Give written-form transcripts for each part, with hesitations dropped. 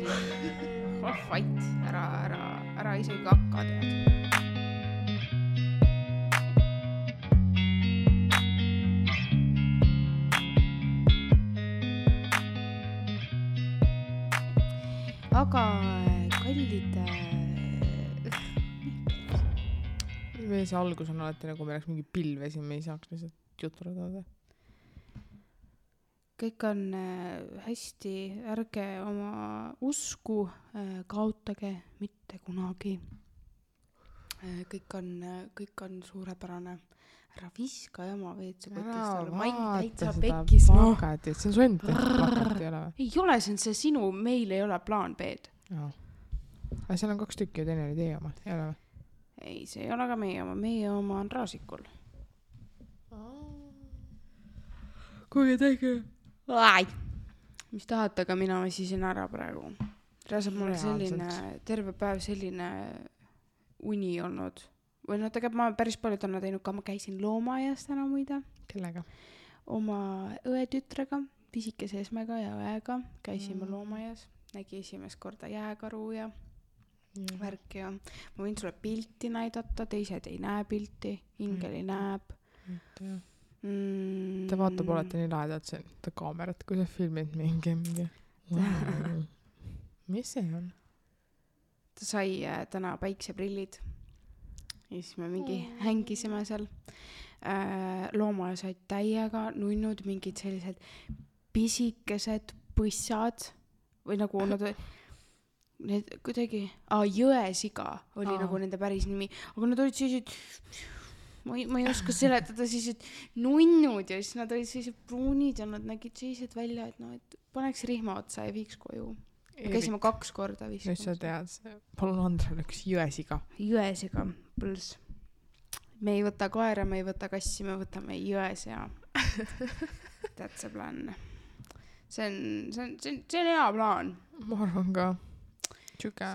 Vait, ära isegi hakka tead. Aga kallid Meie see algus on alati nagu me oleks mingi pilve siin, me ei saaks lihtsalt juturada. kõik on hästi, ärge oma usku kaotage mitte kunagi. Kõik on suurepärane. Ära viska jama WC-potist, ma ei täitsa pekkis. Plakatit, see on su enda plakat, ei ole või? Ei ole, see on see sinu, meil ei ole plaan B-d. Aga seal on 2 tükki ja teine oli teie oma, ei ole või? Ei, see ei ole ka meie oma on Raasikul. Kuigi tegi. Mis tahate, aga mina väsisin ära praegu. Reaalselt mul selline, terve päev selline uni olnud. Või tegelikult ma päris palju täna teinud ka, ma käisin loomaaias täna muide. Kellega? Oma õetütrega, pisikese Esmega ja õega käisime loomaaias. Nägi esimest korda jääkaru ja värk ja ma võin sulle pilti näidata, teised ei näe pilti, Ingeli näeb. Ta vaatab olete nii lahedalt see kaamerat, kui sa filmid mingi. Wow. Mis see on? Ta sai täna päikseprillid ja siis me mingi hängisime seal. Loomaaja said täiega nunnud mingid sellised pisikesed põssad või nagu nad need kuidagi, jõesiga oli nagu nende päris nimi, aga nad olid sellised, ma ei oska seletada, sellised nunnud ja siis nad olid sellised pruunid ja nad nägid sellised välja, et paneks rihma otsa ja viiks koju. Käisime 2 korda vist. Nüüd sa tead, palun Andrele üks jõesiga. Jõesiga, põls. Me ei võta koera, me ei võta kassi, me võtame jõesea. That's a plan. See on hea plaan. Ma arvan ka. Tšuke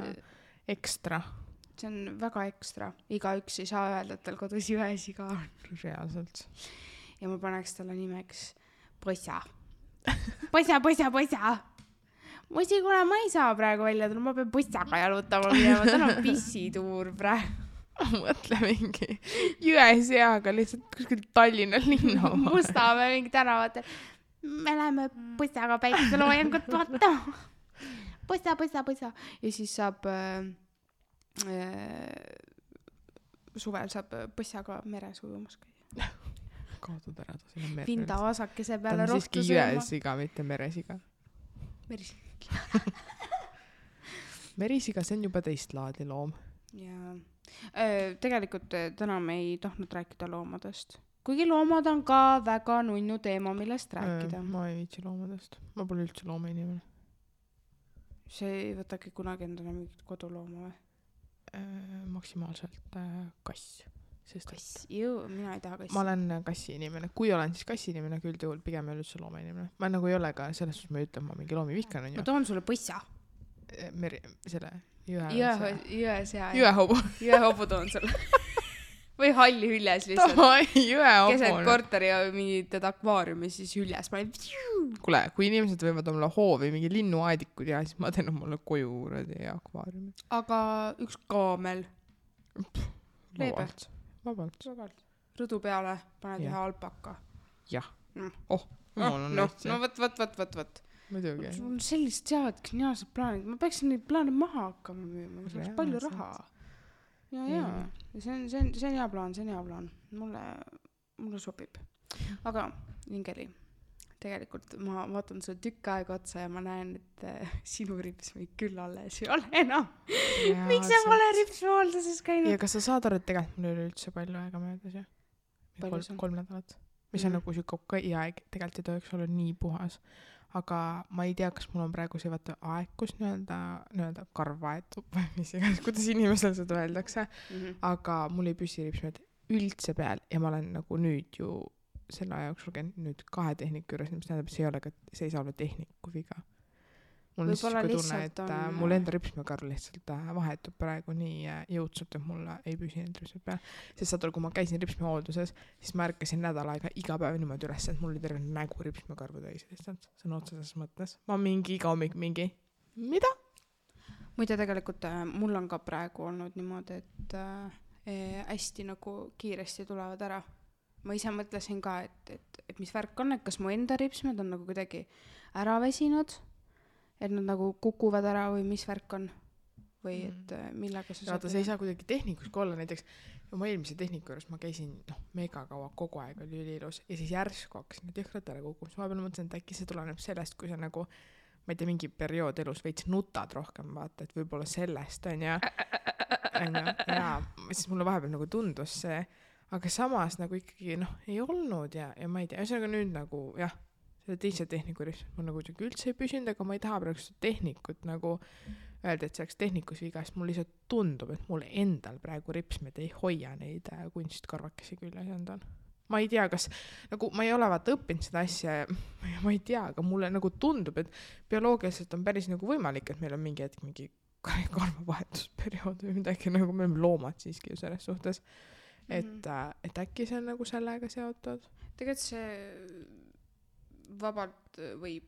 ekstra. See on väga ekstra. Igaüks ei saa öelda, et tal kodus jõesiga on. Reaalselt. Ja ma paneks talle nimeks Põssa. Põssa. Musi, kuna ma ei saa praegu välja tulla, ma pean Põssaga jalutama minema. Tal on pissituur praegu. Mõtle mingi jõeseaga lihtsalt kuskil Tallinna linna. Mustamäe mingi tänavatel. Me läheme Põssaga päikeseloojangut vaatama. Põssa. Ja siis saab suvel saab Põssaga meres ujumas käia. Kaotud ära ta sinna merre. Vinda vasakese peale rohtu sööma. Ta on siiski jõesiga, mitte meresiga. Merisiga. Merisiga, see on juba teist laadi loom. Ja tegelikult täna me ei tahtnud rääkida loomadest. Kuigi loomad on ka väga nunnu teema, millest rääkida. Ma ei viitsi loomadest. Ma pole üldse looma inimene. See ei võtagi kunagi endale mingit kodulooma või? Maksimaalselt kass. Kass, mina ei taha kassi. Ma olen kassi inimene. Kui olen siis kassi inimene, küll juhul pigem ei ole üldse looma inimene. Ma nagu ei ole ka selles suhtes, ma ütlen, ma mingi loomi vihkan. Ma toon sulle Põssa. Selle jõesea. Jõehobu toon sulle. Või halli hüljes lihtsalt. Keset korteri ja mingid akvaariumi siis hüljes. Kule, kui inimesed võivad olla hoovi mingi linnuaedikud ja siis ma teen mulle koju akvaariumi. Aga üks kaamel. Vabalt. Rõdu peale paned ühe alpaka. Jah. No, võt. Muidugi. Sul on sellist sead geniaalsed plaanid. Ma peaksin neid plaane maha hakkama müüma. See oleks palju raha. Ja. See on hea plaan. Mulle sobib. Aga Ingeli, tegelikult ma vaatan sulle tükk aega otsa ja ma näen, et sinu ripsmeid küll alles ei ole enam. Miks sa pole ripsmehalduses käinud? Ja kas sa saad aru, et tegelikult mul oli üldse palju aega möödas, jah? 3 nädalat. Mis on nagu süka aeg, tegelikult ei tohiks olla nii puhas. Aga ma ei tea, kas mul on praegu see aeg, kus nii-öelda karvaetub või mis iganes, kuidas inimesel seda öeldakse. Aga mul ei püsi ripsmed üldse peal ja ma olen nagu nüüd ju selle aja jooksul käinud nüüd 2 tehniku juures, mis tähendab, see ei saa olla tehniku viga. Mul on siis tunne, et mul enda ripsmekarv lihtsalt vahetub praegu nii jõudsult, et mul ei püsi need ripsmed peal. Sest saad, kui ma käisin ripsmehoolduses, siis ma ärkasin nädal aega iga päev niimoodi üles, et mul oli terve nägu ripsmekarvu täis lihtsalt. See on otseses mõttes. Ma mingi iga hommik mingi, mida? muide tegelikult mul on ka praegu olnud niimoodi, et hästi nagu kiiresti tulevad ära. Ma ise mõtlesin ka, et mis värk on, et kas mu enda ripsmed on nagu kuidagi ära väsinud, et nad nagu kukuvad ära või mis värk on või et millega sa sa ei saa kuidagi tehnikus ka olla, näiteks oma eelmise tehniku juures ma käisin mega kaua, kogu aeg oli üliilus ja siis järsku hakkasin need jõhkrad ära kukkuma, siis vahepeal mõtlesin, et äkki see tuleneb sellest, kui sa nagu ma ei tea, mingi periood elus veits nutad rohkem, vaata, et võib-olla sellest on ja siis mulle vahepeal nagu tundus see, aga samas nagu ikkagi ei olnud ja ma ei tea, ühesõnaga nüüd nagu jah, selle teise tehniku ripsmed mul nagu üldse ei püsinud, aga ma ei taha praegu seda tehnikut nagu öelda, et see oleks tehnikus viga, sest mul lihtsalt tundub, et mul endal praegu ripsmed ei hoia neid kunstkarvakesi küljes endal. Ma ei tea, kas nagu ma ei ole vaata õppinud seda asja ja ma ei tea, aga mulle nagu tundub, et bioloogiliselt on päris nagu võimalik, et meil on mingi hetk mingi karvavahetusperiood või midagi, nagu me oleme loomad siiski ju selles suhtes, et äkki see on nagu sellega seotud. Tegelikult see vabalt võib.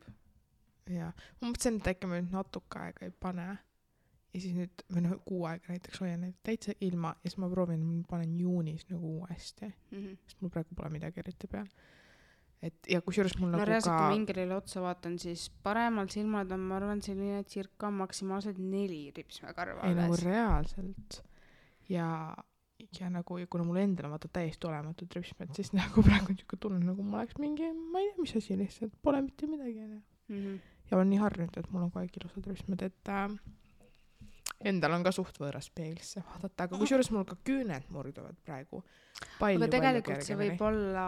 Ja ma mõtlesin, et äkki ma nüüd natuke aega ei pane ja siis nüüd või kuu aega näiteks hoian neid täitsa ilma ja siis ma proovin, ma panen juunis nagu uuesti, sest mul praegu pole midagi eriti peal. Et ja kusjuures mul nagu reaalselt, kui mingerile otsa vaatan, siis paremal silmad on, ma arvan, selline circa maksimaalselt 4 ripsmekarva. Ei nagu reaalselt ja nagu, ja kuna mul endal on vaata täiesti olematud ripsmed, siis nagu praegu on niisugune tunne, nagu ma oleks mingi, ma ei tea, mis asi lihtsalt, pole mitte midagi. Ja olen nii harjunud, et mul on kogu aeg ilusad ripsmed, et endal on ka suht võõras peeglisse vaadata, aga kusjuures mul ka küüned murduvad praegu palju. Aga tegelikult see võib olla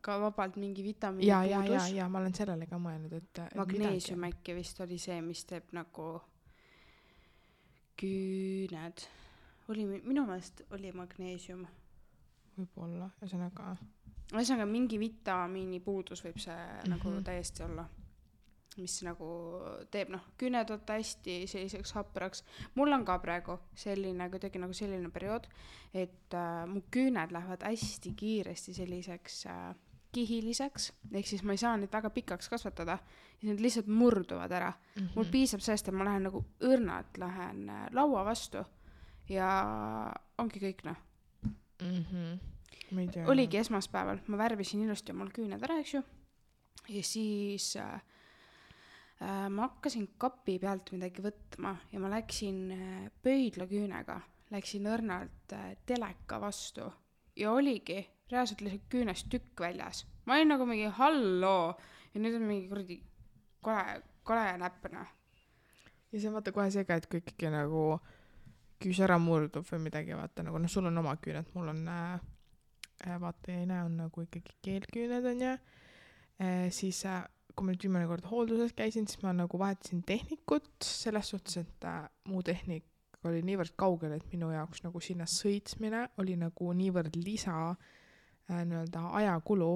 ka vabalt mingi vitamiini puudus. Ja ma olen sellele ka mõelnud, et magneesium äkki vist oli see, mis teeb nagu küüned. Minu meelest oli magneesium. Võib-olla, ühesõnaga mingi vitamiini puudus võib see nagu täiesti olla, mis nagu teeb küüned võtta hästi selliseks hapraks. Mul on ka praegu selline, kuidagi nagu selline periood, et mu küüned lähevad hästi kiiresti selliseks kihiliseks, ehk siis ma ei saa neid väga pikaks kasvatada ja need lihtsalt murduvad ära. Mul piisab sellest, et ma lähen nagu õrnalt lähen laua vastu ja ongi kõik Oligi esmaspäeval, ma värvisin ilusti omal küüned ära, eks ju, ja siis ma hakkasin kapi pealt midagi võtma ja ma läksin pöidlaküünega, läksin õrnalt teleka vastu ja oligi reaalselt lihtsalt küünest tükk väljas. Ma olin nagu mingi halloo ja nüüd on mingi kuradi kole näppena. Ja see on vaata kohe seega, et kui ikkagi nagu küüs ära murdub või midagi, vaata nagu, sul on oma küüned, mul on vaata ja ei näe, on nagu ikkagi keelküüned on ja siis kui ma nüüd viimane kord hoolduses käisin, siis ma nagu vahetasin tehnikut selles suhtes, et muu tehnik oli niivõrd kaugel, et minu jaoks nagu sinna sõitsmine oli nagu niivõrd lisa nii-öelda ajakulu,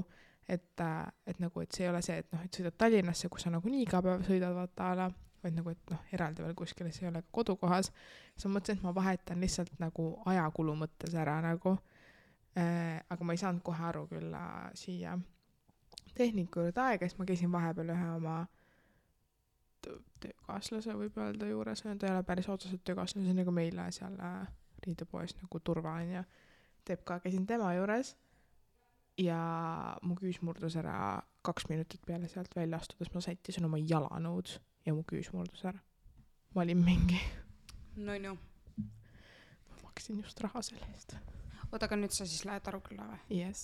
et nagu, et see ei ole see, et et sõidad Tallinnasse, kus sa nagu nii iga päev sõidad vaata ala, vaid nagu, et eraldi veel kuskile, see ei ole ka kodukohas. Siis ma mõtlesin, et ma vahetan lihtsalt nagu ajakulu mõttes ära nagu, aga ma ei saanud kohe aru küll siia tehniku juurde aega, siis ma käisin vahepeal ühe oma töökaaslase võib öelda juures, ta ei ole päris otseselt töökaaslase, nagu meile seal riidepoes nagu Turva on ja teeb ka, käisin tema juures ja mu küüs murdus ära 2 minutit peale sealt välja astudes, ma sättisin oma jalanõud ja mu küüs murdus ära. Ma olin mingi ma maksin just raha selle eest. Oota, aga nüüd sa siis lähed Arukülla või? Yes.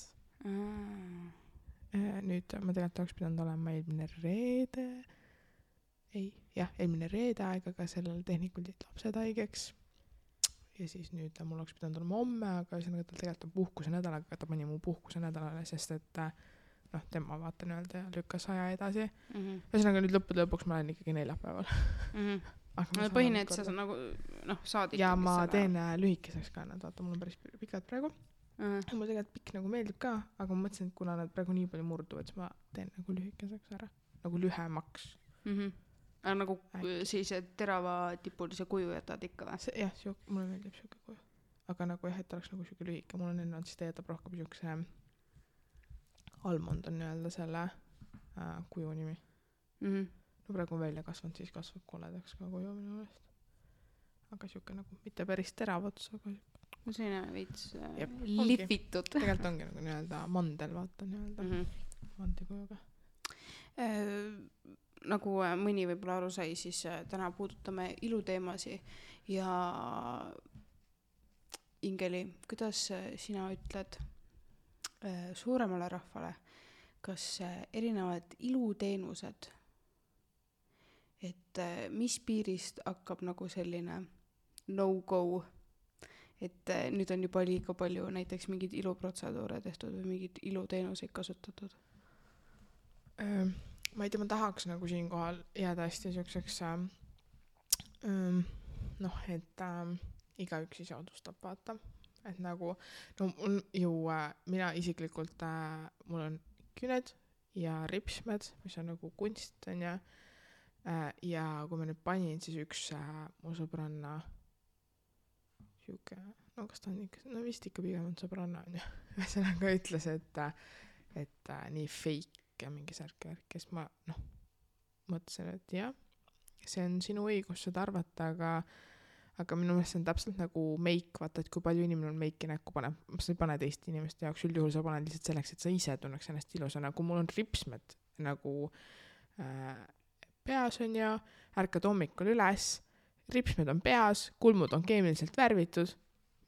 Nüüd ma tegelikult oleks pidanud olema eelmine reede aega, aga sellel tehnikul jäid lapsed haigeks ja siis nüüd mul oleks pidanud olema homme, aga ühesõnaga tal tegelikult on puhkuse nädal, aga ta pani mu puhkuse nädalale, sest et tema vaata nii-öelda lükkas aja edasi. Ühesõnaga nüüd lõppude lõpuks ma olen ikkagi neljapäeval. Põhine, et sa nagu saad ja ma teen lühikeseks ka nad, vaata mul on päris pikad praegu. Mul tegelikult pikk nagu meeldib ka, aga ma mõtlesin, et kuna nad praegu nii palju murduvad, siis ma teen nagu lühikeseks ära, nagu lühemaks. Aga nagu siis terava tipulise kuju jätad ikka või? Jah, mulle meeldib siuke kuju. Aga nagu jah, et oleks nagu siuke lühike, mul on enne, siis ta jätab rohkem siukse almond on nii-öelda selle kuju nimi. No praegu on välja kasvanud, siis kasvab koledaks ka kuju minu meelest. aga siuke nagu mitte päris terav ots, aga no selline veits Jep, lihvitud. tegelikult ongi nagu nii-öelda mandel, vaata nii-öelda mandikujuga. Nagu mõni võib-olla aru sai, siis täna puudutame iluteemasi ja Ingeli, kuidas sina ütled suuremale rahvale, kas erinevad iluteenused, et mis piirist hakkab nagu selline no-go, et nüüd on juba liiga palju näiteks mingeid iluprotseduure tehtud või mingeid iluteenuseid kasutatud? Ma ei tea, ma tahaks nagu siinkohal jääda hästi siukseks et igaüks ise otsustab, vaata. Et nagu, no mina isiklikult, mul on küned ja ripsmed, mis on nagu kunst, on ja kui ma nüüd panin, siis üks mu sõbranna siuke, no kas ta on ikka, no vist ikka pigem on sõbranna, on ühesõnaga ütles, et nii fake ja mingi särk, kes ma, mõtlesin, et jah, see on sinu õigus seda arvata, aga minu meelest see on täpselt nagu meik, vaata, et kui palju inimene on meiki näkku paneb, sa ei pane teist inimeste jaoks, üldjuhul sa paned lihtsalt selleks, et sa ise tunneks ennast ilusana, kui mul on ripsmed nagu peas on ja ärkad hommikul üles, ripsmed on peas, kulmud on keemiliselt värvitud,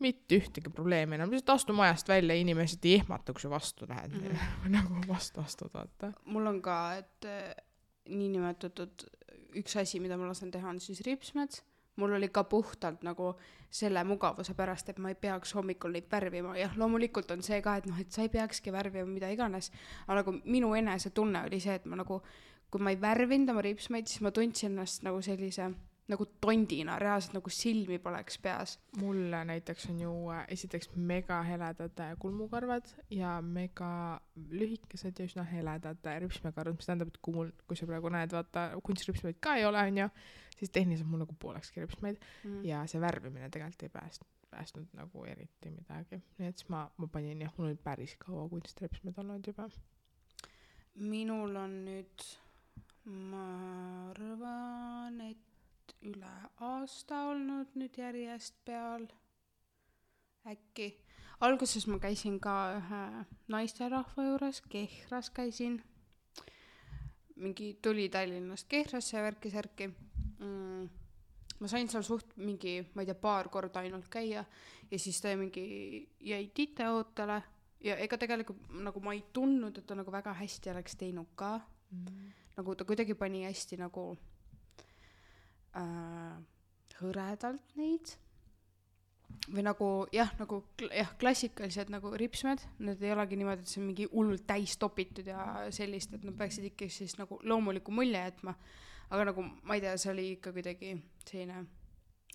mitte ühtegi probleemi enam, lihtsalt astu majast välja, inimesed ei ehmata, kui sa vastu lähed, nagu vastu, vaata. Mul on ka, et niinimetatud üks asi, mida ma lasen teha, on siis ripsmed. Mul oli ka puhtalt nagu selle mugavuse pärast, et ma ei peaks hommikul neid värvima. Jah, loomulikult on see ka, et sa ei peakski värvima mida iganes. Aga nagu minu enese tunne oli see, et ma nagu, kui ma ei värvinud oma ripsmeid, siis ma tundsin ennast nagu sellise nagu tondina, reaalselt nagu silmi poleks peas. Mulle näiteks on ju esiteks mega heledad kulmukarvad ja mega lühikesed ja üsna heledad ripsmekarvad, mis tähendab, et kui sa praegu näed, vaata, kunstripsmeid ka ei ole, on ju, siis tehniliselt mul nagu poolekski ripsmeid ja see värvimine tegelikult ei päästnud nagu eriti midagi. Nii et siis ma panin jah, mul oli päris kaua kunstripsmeid olnud juba. Minul on nüüd, ma arvan, et üle aasta olnud nüüd järjest peal. Äkki. Alguses ma käisin ka ühe naisterahva juures, Kehras käisin. Mingi tuli Tallinnast Kehrasse ja värki-särki. Ma sain seal suht mingi, ma ei tea, paar korda ainult käia ja siis ta jäi titeootele ja ega tegelikult nagu ma ei tundnud, et ta nagu väga hästi oleks teinud ka. Nagu ta kuidagi pani hästi nagu hõredalt neid või nagu klassikalised nagu ripsmed, need ei olegi niimoodi, et see on mingi hullult täis topitud ja sellist, et nad peaksid ikka siis nagu loomuliku mulje jätma, aga nagu ma ei tea, see oli ikka kuidagi selline,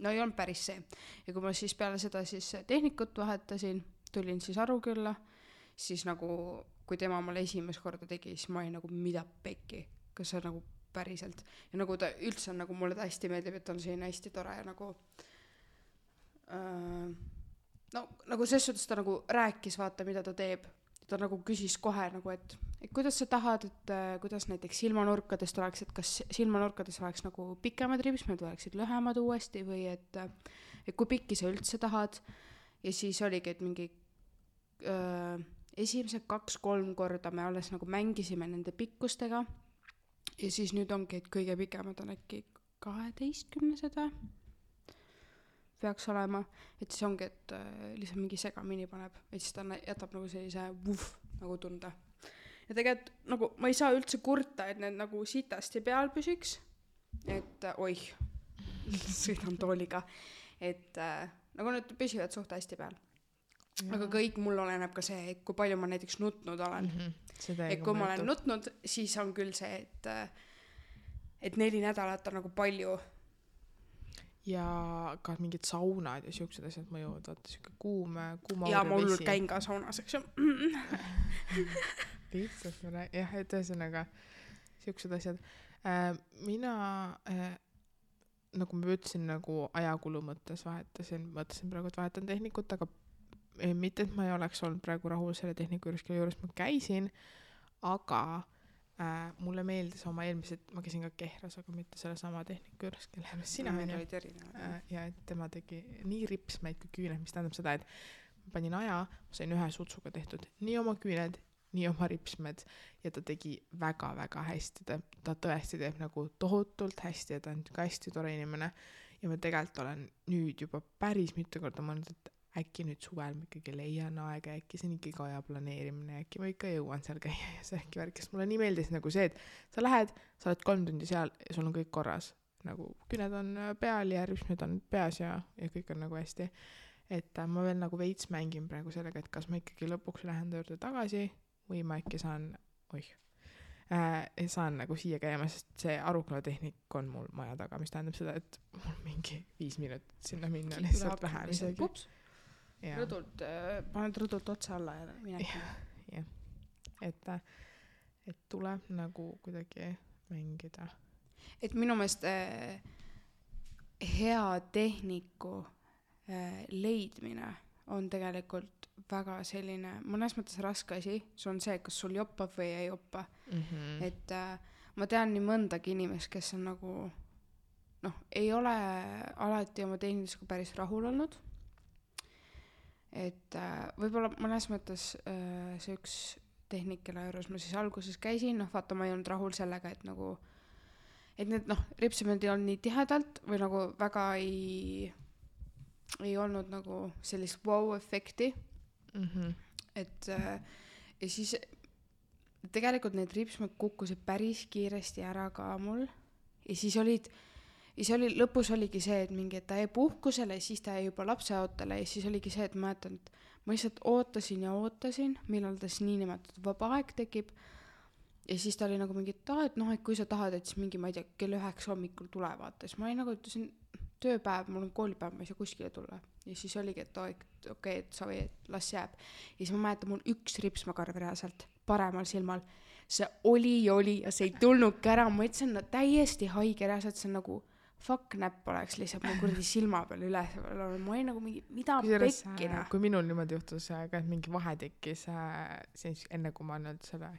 no ei olnud päris see ja kui ma siis peale seda siis tehnikut vahetasin, tulin siis Arukülla, siis nagu kui tema mulle esimest korda tegi, siis ma olin nagu mida pekki, kas see nagu päriselt. Ja nagu ta üldse on, nagu mulle ta hästi meeldib, et on selline hästi tore ja nagu nagu selles suhtes ta nagu rääkis, vaata, mida ta teeb. Ta nagu küsis kohe nagu, et kuidas sa tahad, et kuidas näiteks silmanurkadest oleks, et kas silmanurkades oleks nagu pikemad ripsmed või oleksid lühemad uuesti või et kui pikki sa üldse tahad. Ja siis oligi, et mingi esimesed 2-3 korda me alles nagu mängisime nende pikkustega. Ja siis nüüd ongi, et kõige pikemad on äkki 12 peaks olema, et siis ongi, et lihtsalt mingi segamini paneb, et siis ta jätab nagu sellise nagu tunda. Ja tegelikult nagu ma ei saa üldse kurta, et need nagu sitasti peal püsiks, et sõidan tooliga, et nagu need püsivad suht hästi peal. Aga kõik mul oleneb ka see, et kui palju ma näiteks nutnud olen. Et kui ma olen nutnud, siis on küll see, et 4 nädalat on nagu palju. Ja ka mingid saunad ja siuksed asjad mõjuvad, vaata siuke kuuma ja ma hullult käin ka saunas, eks ju. Lihtsalt jah, et ühesõnaga siuksed asjad. Mina nagu ma ütlesin, nagu ajakulu mõttes mõtlesin praegu, et vahetan tehnikut, aga mitte, et ma ei oleks olnud praegu rahul selle tehniku juures, kelle juures ma käisin, aga mulle meeldis oma eelmised, ma käisin ka Kehras, aga mitte selle sama tehniku juures, kelle juures sina ja et tema tegi nii ripsmeid kui küüned, mis tähendab seda, et ma panin aja, ma sain ühe sutsuga tehtud nii oma küüned, nii oma ripsmed ja ta tegi väga-väga hästi, ta tõesti teeb nagu tohutult hästi ja ta on ka hästi tore inimene ja ma tegelikult olen nüüd juba päris mitu korda mõelnud, et äkki nüüd suvel ma ikkagi leian aega, äkki see on ikkagi aja planeerimine, äkki ma ikka jõuan seal käia ja see äkki värk, sest mulle nii meeldis nagu see, et sa lähed, sa oled 3 tundi seal ja sul on kõik korras, nagu küüned on peal ja ripsmed on peas ja kõik on nagu hästi, et ma veel nagu veits mängin praegu sellega, et kas ma ikkagi lõpuks lähen ta juurde tagasi või ma äkki saan saan nagu siia käima, sest see Aruküla tehnik on mul maja taga, mis tähendab seda, et mul mingi 5 minutit sinna minna lihtsalt vähem isegi. Rõdult, paned rõdult otsa alla ja minegi. Jah, et tuleb nagu kuidagi mängida. Et minu meelest hea tehniku leidmine on tegelikult väga selline, mõnes mõttes raske asi, see on see, kas sul joppab või ei joppa. Et ma tean nii mõndagi inimest, kes on nagu ei ole alati oma tehnilisega päris rahul olnud. Et võib-olla mõnes mõttes see üks tehnik, kelle juures ma siis alguses käisin, vaata ma ei olnud rahul sellega, et nagu et need ripsmed ei olnud nii tihedalt või nagu väga ei olnud nagu sellist wow-efekti. Et ja siis tegelikult need ripsmed kukkusid päris kiiresti ära ka mul ja siis lõpus oligi see, et mingi, et ta jäi puhkusele ja siis ta jäi juba lapseootele ja siis oligi see, et ma mäletan, et ma lihtsalt ootasin, millal ta siis niinimetatud vaba aeg tekib ja siis ta oli nagu mingi, et et kui sa tahad, et siis mingi, ma ei tea, kell 9 hommikul tule vaata, siis ma olin nagu, ütlesin tööpäev, mul on koolipäev, ma ei saa kuskile tulla ja siis oligi, et okei, et sa või, et las jääb ja siis ma mäletan, mul üks ripsmakarv reaalselt paremal silmal, see oli ja see ei tulnudki ära, ma ütlesin, täiesti haige reaalselt, see on nagu fuck näpp oleks lihtsalt mul kurdi silma peal üles, ma olin nagu mingi, mida pekkina. Kui minul niimoodi juhtus ka, et mingi vahe tekkis siis enne kui ma nüüd selle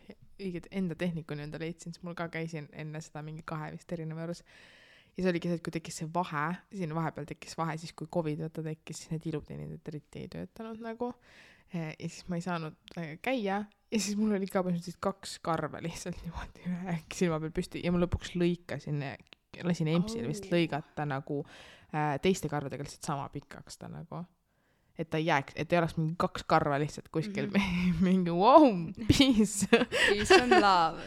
õiget enda tehnikuni enda leidsin, siis mul ka käisin enne seda mingi 2 vist erineva juures ja see oligi see, et kui tekkis see vahe, siin vahepeal tekkis vahe, siis kui COVID tekkis, siis need iluteenindajad eriti ei töötanud nagu ja siis ma ei saanud käia ja siis mul oli ka põhimõtteliselt 2 karva lihtsalt niimoodi ühe silma peal püsti ja ma lõpuks lasin EMS-il vist lõigata nagu teiste karvadega lihtsalt sama pikaks ta nagu, et ta ei jääks, et ei oleks mingi 2 karva lihtsalt kuskil mingi wow, peace and love.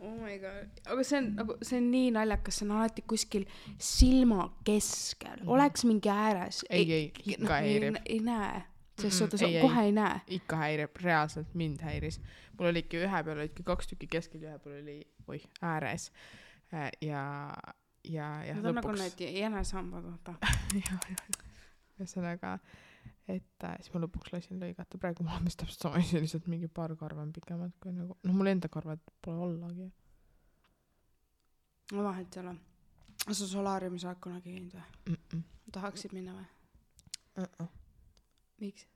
Oh my god, aga see on nii naljakas, see on alati kuskil silma keskel, oleks mingi ääres. Ei, ikka häirib. Ei näe, sest suhtes kohe ei näe. Ikka häirib, reaalselt mind häiris. Mul olidki ühe peal olidki 2 tükki keskel ja ühe peal oli ääres. Ja lõpuks. Nagu need jänesambad, vaata. Ühesõnaga, et siis ma lõpuks lasin lõigata. Praegu mul on täpselt sama asi, lihtsalt mingi paar karva on pikemad kui nagu, mul enda karvad pole ollagi. No vahet ei ole. Sa solaariumis oled kunagi käinud või? Tahaksid minna või? Miks?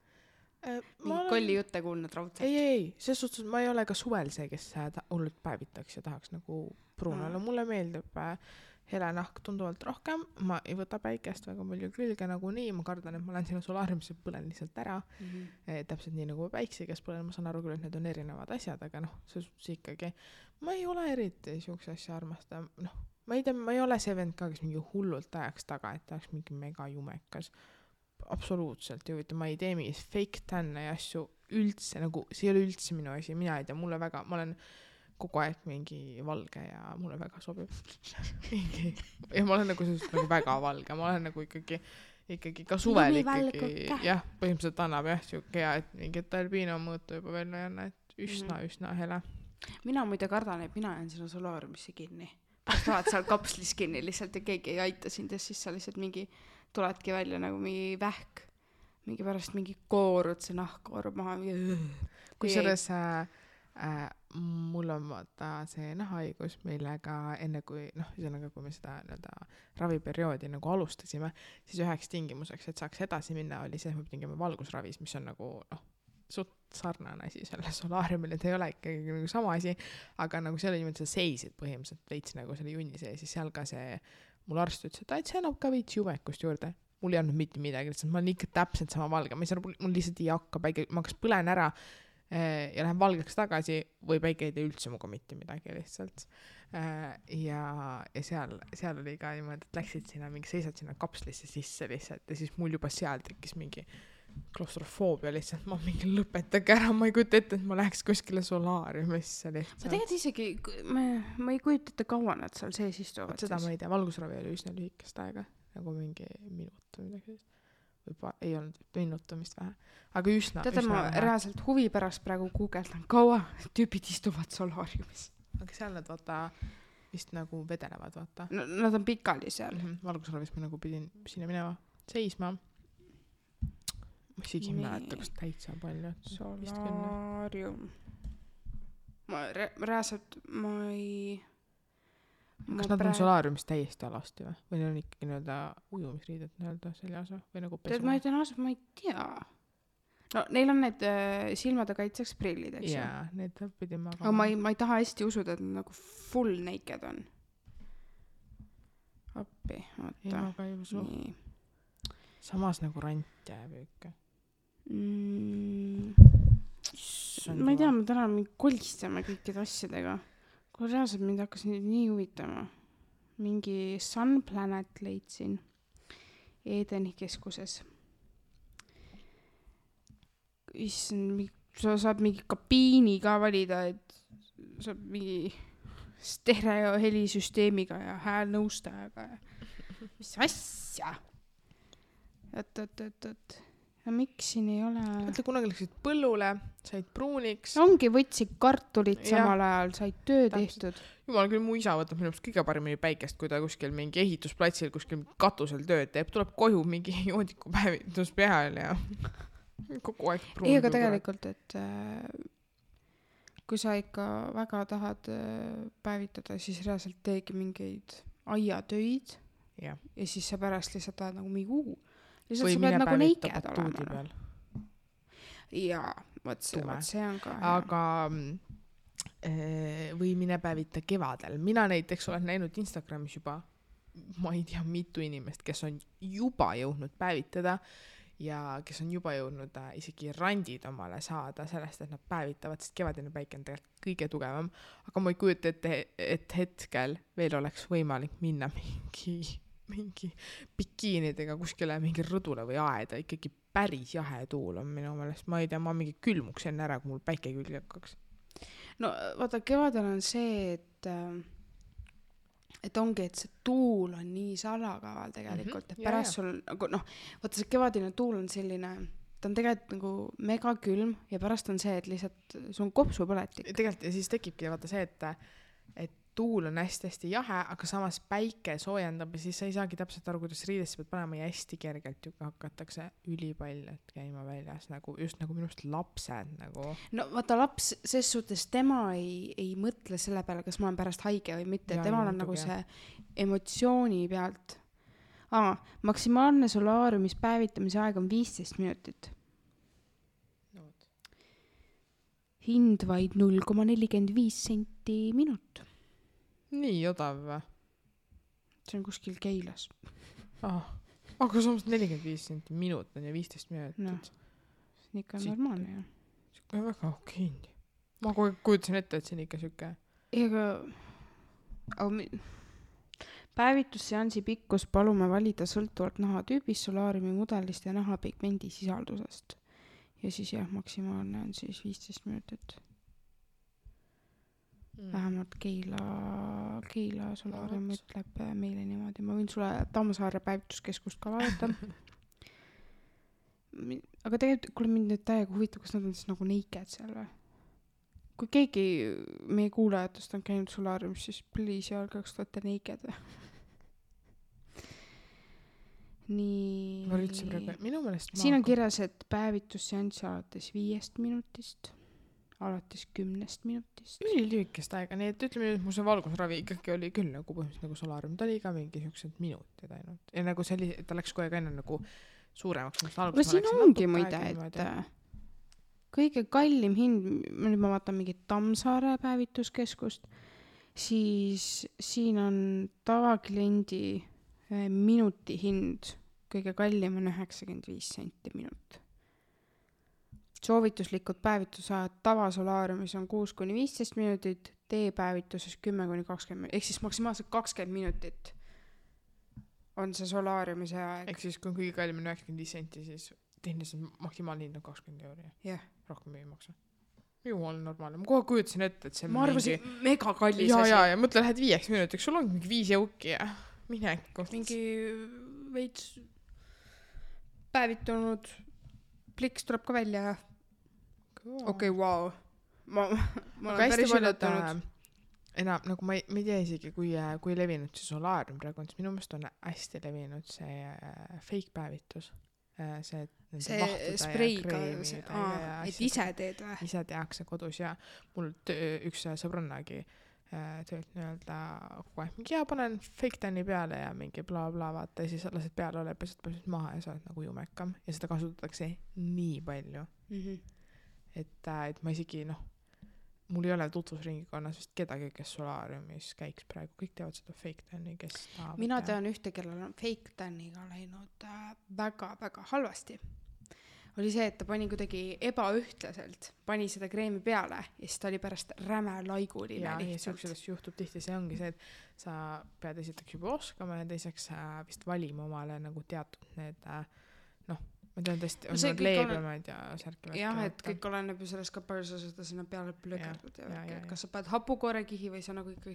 Mingi kolli jutte kuulnud raudselt? Ei, selles suhtes ma ei ole ka suvel see, kes hullult päevitaks ja tahaks nagu pruunale. Mulle meeldib hele nahk tunduvalt rohkem, ma ei võta päikest väga palju külge nagu nii, ma kardan, et ma lähen sinna solaariumisse, põlen lihtsalt ära, täpselt nii nagu päikse, kes põlen, ma saan aru küll, et need on erinevad asjad, aga see ikkagi, ma ei ole eriti siukse asja armasta, ma ei tea, ma ei ole see vend ka, kes mingi hullult ajaks taga, et ta oleks mingi mega jumekas, absoluutselt ei huvita, ma ei tee mingis fake tänne ja asju üldse, nagu see ei ole üldse minu asi, mina ei tea, mulle väga, ma olen kogu aeg mingi valge ja mulle väga sobib. Ja ma olen nagu sellisest nagu väga valge, ma olen nagu ikkagi ka suvel ikkagi, jah, põhimõtteliselt annab jah siuke hea, et mingi albino mõõtu juba veel ei anna, et üsna hele. Mina muide kardan, et mina jään sinna solaariumisse kinni. Pärast oled seal kapslis kinni lihtsalt ja keegi ei aita sind ja siis sa lihtsalt mingi tuledki välja nagu mingi vähk. Mingi pärast mingi koorud, see nahk koorub maha. Kui selles mul on vaata see nahahaigus, millega enne kui, kui me seda raviperioodi nagu alustasime, siis üheks tingimuseks, et saaks edasi minna, oli see, et me pidime valgusravis, mis on nagu, suht sarnane asi selle solaariumile, et ei ole ikkagi nagu sama asi, aga nagu seal oli niimoodi, sa seisid põhimõtteliselt veits nagu selle junni sees, siis seal ka see mul arst ütles, et see annab ka veits jumekust juurde. Mul ei olnud mitte midagi, lihtsalt ma olen ikka täpselt sama valge, mul lihtsalt ei hakka päike, ma kas põlen ära ja lähen valgeks tagasi või päike ei tee üldse muga mitte midagi lihtsalt. Ja seal oli ka niimoodi, et läksid sinna mingi, seisad sinna kapslisse sisse lihtsalt ja siis mul juba seal tekkis mingi klaustrofoobia lihtsalt, ma mingi lõpetage ära, ma ei kujuta ette, et ma läheks kuskile solaariumisse lihtsalt. Ma tegelikult isegi, ma ei kujuta ette kaua nad seal sees istuvad. Seda ma ei tea, valgusravi oli üsna lühikest aega, nagu mingi minut või midagi. Või ei olnud minutamist vähe, aga üsna. Teate, ma reaalselt huvi pärast praegu guugeldan, kaua tüübid istuvad solaariumis. Aga seal nad vaata vist nagu vedelevad, vaata. No, nad on pikali seal. Valgusravis ma nagu pidin sinna minema seisma. Ma isegi mäleta, kas täitsa palju. Solaarium. Ma reaalselt, ma ei... Kas nad on solaariumis täiesti alasti või? Või on ikkagi nõelda ujumisriided nõelda seljas või nagu pesu? Ma ei tea. No neil on need silmade kaitseks prillid, eks ju? Jaa, need pidin ma... Aga ma ei taha hästi usuda, et nad nagu full naked on. Appi, oota. Ei, ma ka ei usu. Nii. Samas nagu rant jääb ikka. Ma ei tea, ma täna kolistame kõikide asjadega. Kui reaalselt mind hakkas nii huvitama. Mingi Sun Planet leidsin Edeni keskuses. Sa saad mingi kabiini ka valida, et saab mingi stereo helisüsteemiga ja häälnõustajaga. Mis asja? Oot. Ja miks siin ei ole... Mõtle, kunagi läksid põllule, said pruuniks. Ongi võtsid kartulit samal ajal, said töö tehtud. Jumal küll, mu isa võtab minu kõige paremini päikest, kui ta kuskil mingi ehitusplatsil, kuskil katusel tööd teeb. Tuleb koju mingi joodiku päevitus peal ja kogu aeg pruun. Ei, aga tegelikult, et kui sa ikka väga tahad päevitada, siis reaalselt teegi mingeid aiatöid ja siis sa pärast lihtsalt tahad nagu mingi lihtsalt või sa pead nagu neiked olema. Jaa, võt see on ka. Aga või mine päevita kevadel. Mina näiteks olen näinud Instagramis juba, ma ei tea, mitu inimest, kes on juba jõudnud päevitada ja kes on juba jõudnud isegi randid omale saada sellest, et nad päevitavad, sest kevadine päike on tegelikult kõige tugevam. Aga ma ei kujuta ette, et hetkel veel oleks võimalik minna mingi bikiinidega kuskile mingi rõdule või aeda, ikkagi päris jahe tuul on minu meelest, ma ei tea, ma mingi külmuks enne ära, kui mul päike külge hakkaks. No vaata, kevadel on see, et ongi, et see tuul on nii salakaval tegelikult, et pärast sul, vaata see kevadine tuul on selline, ta on tegelikult nagu mega külm ja pärast on see, et lihtsalt sul on kopsupõletik. Tegelikult ja siis tekibki vaata see, et tuul on hästi jahe, aga samas päike soojendab ja siis sa ei saagi täpselt aru, kuidas riidesse pead panema ja hästi kergelt ju hakatakse ülipaljalt käima väljas, nagu, just nagu minust lapsed nagu. No vaata laps, ses suhtes tema ei mõtle selle peale, kas ma olen pärast haige või mitte, temal on nagu see emotsiooni pealt. Maksimaalne solaariumis päevitamise aeg on 15 minutit. No. Hind vaid 0,45 senti minut. Nii odav või? See on kuskil Keilas. Aga samas 45 senti minut on ja 15 minutit. No, see on ikka normaalne ju. See on väga okei. Ma kujutasin ette, et see on ikka siuke. Päevitusseansi pikkus palume valida sõltuvalt nahatüübist, solaariumi mudelist ja nahapigmendi sisaldusest. Ja siis maksimaalne on siis 15 minutit. Vähemalt Keila solaarium ütleb meile niimoodi. Ma võin sulle Tammsaare päevituskeskust ka vaadata. Aga tegelikult, kuule mind nüüd täiega huvitav, kas nad on siis nagu neiked seal või? Kui keegi meie kuulajatest on käinud solaariumis, siis please öelge, kas te olete neiked või? Nii. Ma üldse praegu, minu meelest siin on kirjas, et päevitusseanss alates 5 minutist. Alates 10 minutist. Lühikest aega, nii et ütleme, et mu see valgusravi ikkagi oli küll nagu põhimõtteliselt nagu solaarium. Ta oli ka mingi siuksed minutid ainult. Ja nagu see oli, ta läks kogu aeg enne nagu suuremaks. Aga siin ongi muide, et kõige kallim hind, nüüd ma vaatan mingit Tammsaare päevituskeskust, siis siin on tavakliendi minuti hind, kõige kallim on 95 senti minut. Soovituslikud päevitusajad tavasolaariumis on 6-15 minutit, teepäevituses 10-20, ehk siis maksimaalselt 20 minutit on see solaariumise aeg. Ehk siis kui kõige kallim on 95 senti, siis tehniliselt maksimaalne hind on 20 euri. Yeah. Rohkem ei maksa. Jumal normaalne. Ma kohe kujutasin ette, et see ma arvasin mega kallis asi. Ja, mõtle, lähed 5 minutiks, sul on mingi 5 jõuki ja mine koht. Mingi veits päevitunud pliks tuleb ka välja ja okei, wow. Ma olen päris üllatunud. Enam, nagu ma ei tea isegi, kui levinud see solaarium praegu on, siis minu meelest on hästi levinud see fake päevitus. See spreiga, et ise teed või? Ise tehakse kodus ja mul üks sõbrannagi töölt nii-öelda kogu aeg mingi, panen fake tan'i peale ja mingi bla bla vaata ja siis lased peale ole, pesed maha ja sa oled nagu jumekam ja seda kasutatakse nii palju. Et ma isegi mul ei ole tutvusringikonnas vist kedagi, kes solaariumis käiks praegu, kõik teavad seda fake tan'i, kes mina tean ühte, kellel on fake tan'iga läinud väga-väga halvasti. Oli see, et ta pani kuidagi ebaühtlaselt, pani seda kreemi peale ja siis ta oli pärast räme laiguline lihtsalt. Ja see juhtub tihti, see ongi see, et sa pead esiteks juba oskama ja teiseks vist valima omale nagu teatud need ma tean tõesti, on need leebemad ja särkivad. Jah, et kõik oleneb ju sellest ka palju sa seda sinna peale plökerdud ja kas sa paned hapukoorekihi või sa nagu ikkagi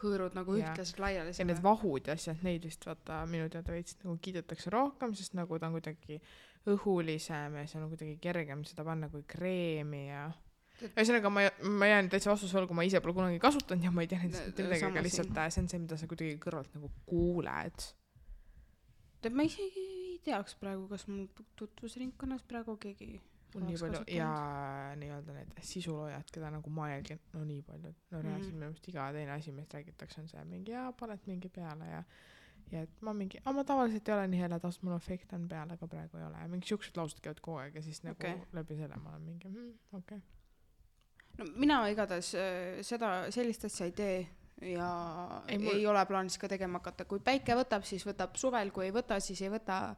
hõõrud nagu ühtlaselt laiali. Ja need vahud ja asjad, neid vist vaata minu teada veits nagu kiidetakse rohkem, sest nagu ta on kuidagi õhulisem ja see on kuidagi kergem seda panna kui kreemi ja ühesõnaga ma jään täitsa vastuse olgu, ma ise pole kunagi kasutanud ja ma ei tea midagi, aga lihtsalt see on see, mida sa kuidagi kõrvalt nagu kuuled. Ma isegi ei teaks praegu, kas mul tutvusringkonnas praegu keegi on nii palju ja nii-öelda need sisuloojad, keda nagu ma jälgin, nii palju. Reaalselt minu meelest iga teine asi, mis räägitakse, on see mingi paned mingi peale ja et ma mingi, ma tavaliselt ei ole nii heledas, mul on fake tan peale, aga praegu ei ole. Ja mingi siuksed laused käivad kogu aeg ja siis nagu läbi selle ma olen mingi, okei. No mina igatahes sellist asja ei tee ja ei ole plaanis ka tegema hakata. Kui päike võtab, siis võtab suvel, kui ei võta, siis ei võta.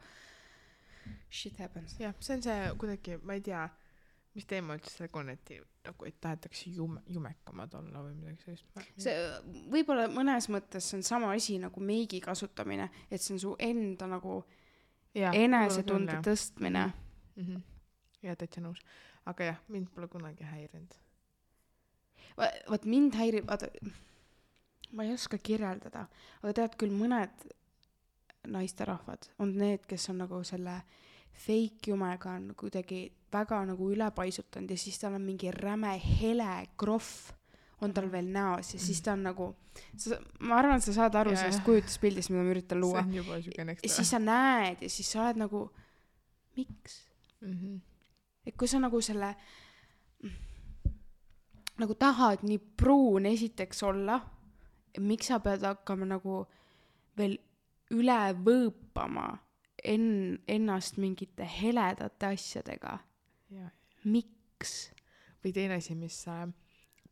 Shit happens. Jah, see on see kuidagi, ma ei tea, mis teema üldse see on, et tahetakse jumekamad olla või midagi sellist. See võib-olla mõnes mõttes see on sama asi nagu meigi kasutamine, et see on su enda nagu enesetunde tõstmine. Ja täitsa nõus. Aga jah, mind pole kunagi häirinud. Vaat mind häirib, ma ei oska kirjeldada, aga tead küll mõned naisterahvad on need, kes on nagu selle fake jumega on kuidagi väga nagu ülepaisutanud ja siis tal on mingi räme hele krohv on tal veel näos ja siis ta on nagu ma arvan, et sa saad aru sellest kujutluspildist, mida ma üritan luua. See on juba süge ja siis sa näed ja siis sa oled nagu miks? Et kui sa nagu selle nagu tahad nii pruun esiteks olla, miks sa pead hakkama nagu veel üle võõpama ennast mingite heledate asjadega? Miks? Või teine asi, mis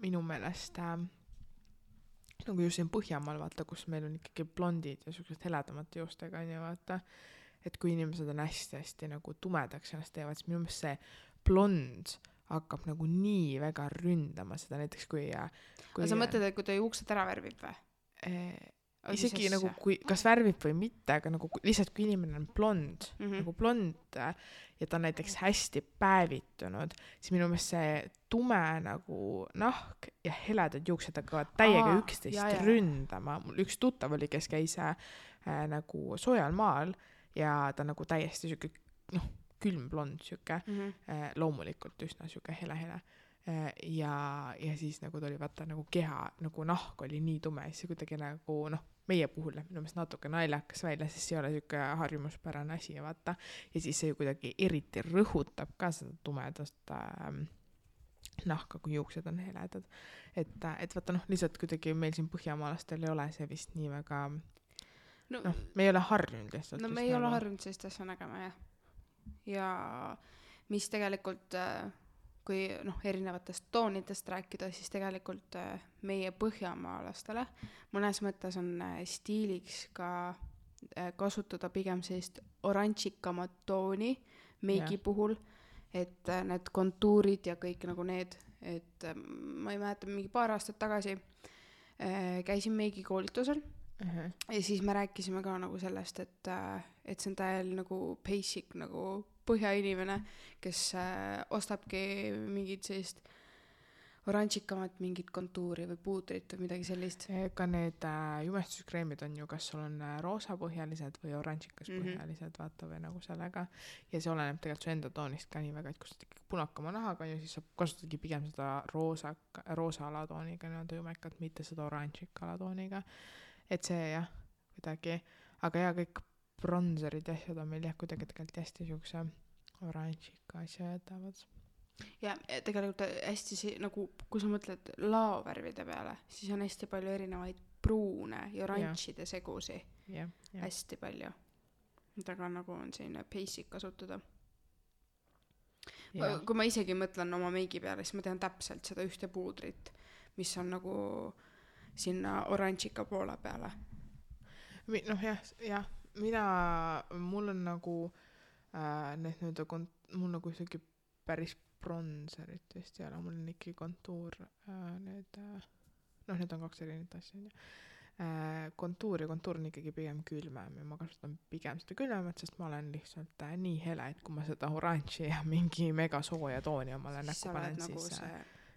minu meelest nagu just siin Põhjamaal vaata, kus meil on ikkagi blondid ja sellised heledamate joostega on ja vaata, et kui inimesed on hästi nagu tumedaks ennast teevad, siis minu meelest see blond hakkab nagu nii väga ründama seda näiteks kui aga sa mõtled, et kui ta juuksed ära värvib või? Isegi nagu kui, kas värvib või mitte, aga nagu lihtsalt kui inimene on blond, nagu blond ja ta on näiteks hästi päevitunud, siis minu meelest see tume nagu nahk ja heledad juuksed hakkavad täiega üksteist ründama. Mul üks tuttav oli, kes käis nagu soojal maal ja ta nagu täiesti siuke külm blond siuke, loomulikult üsna siuke hele. Ja siis nagu ta oli vaata nagu keha, nagu nahk oli nii tume, siis kuidagi nagu meie puhul läheb minu meelest natuke naljakas välja, sest see ei ole siuke harjumuspärane asi vaata ja siis see kuidagi eriti rõhutab ka seda tumedast nahka, kui juuksed on heledad. Et vaata lihtsalt kuidagi meil siin põhjamaalastel ei ole see vist nii väga me ei ole harjunud lihtsalt. Me ei ole harjunud sellist asja nägema, jah. Ja mis tegelikult kui erinevatest toonidest rääkida, siis tegelikult meie põhjamaalastele mõnes mõttes on stiiliks ka kasutada pigem sellist oranžikamat tooni meigi puhul, et need kontuurid ja kõik nagu need, et ma ei mäleta, mingi paar aastat tagasi käisin meigi koolitusel ja siis me rääkisime ka nagu sellest, et see on täiel nagu basic nagu põhjainimene, kes ostabki mingit sellist oranžikamat mingit kontuuri või puudrit või midagi sellist. Ka need jumestuskreemid on ju, kas sul on roosapõhjalised või oranžikas põhjalised, vaata või nagu sellega. Ja see oleneb tegelikult su enda toonist ka nii väga, et kui sa ikkagi punakama nahaga on ju, siis sa kasutadki pigem seda roosa alatooniga nii-öelda jumekat, mitte seda oranžika alatooniga. Et see jah, kuidagi, aga ja kõik bronzerid ja asjad on meil jah kuidagi tegelikult hästi siukse oranžika asja jätavad. Ja tegelikult hästi nagu, kui sa mõtled laovärvide peale, siis on hästi palju erinevaid pruune ja oranžide segusi. Hästi palju. Mida ka nagu on selline basic kasutada. Kui ma isegi mõtlen oma meigi peale, siis ma tean täpselt seda ühte puudrit, mis on nagu sinna oranžika poole peale. jah, mul on nagu mul nagu isegi päris bronzerit vist ei ole, mul on ikkagi kontuur, need on kaks erinevat asja. Kontuur on ikkagi pigem külmem ja ma kasutan pigem seda külmemat, sest ma olen lihtsalt nii hele, et kui ma seda oranži ja mingi mega sooja tooni omale näkku panen, siis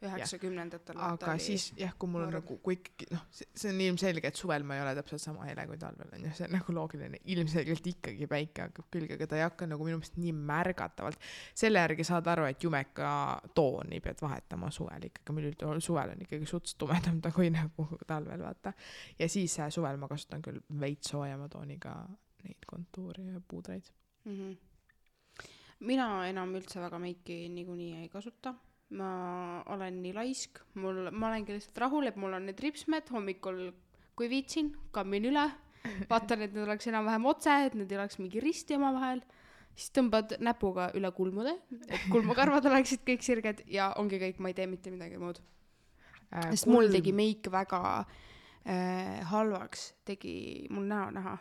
90-ndatel aga siis jah, kui mul on nagu, kui ikkagi, see on ilmselge, et suvel ma ei ole täpselt sama hele kui talvel on ju, see on nagu loogiline, ilmselgelt ikkagi päike hakkab külge, aga ta ei hakka nagu minu meelest nii märgatavalt, selle järgi saad aru, et jumeka tooni pead vahetama suvel ikkagi, meil suvel on ikkagi suts tumedam ta kui nagu talvel, vaata, ja siis suvel ma kasutan küll veits soojama tooniga neid kontuuri ja puudreid. Mina enam üldse väga meiki niikuinii ei kasuta. Ma olen nii laisk, ma olengi lihtsalt rahul, et mul on need ripsmed hommikul, kui viitsin, kammin üle, vaatan, et need oleks enam-vähem otse, et need ei oleks mingi risti oma vahel, siis tõmbad näpuga üle kulmude, et kulmukarvad oleksid kõik sirged ja ongi kõik, ma ei tee mitte midagi muud. Sest mul tegi meik väga halvaks, tegi mul näo näha.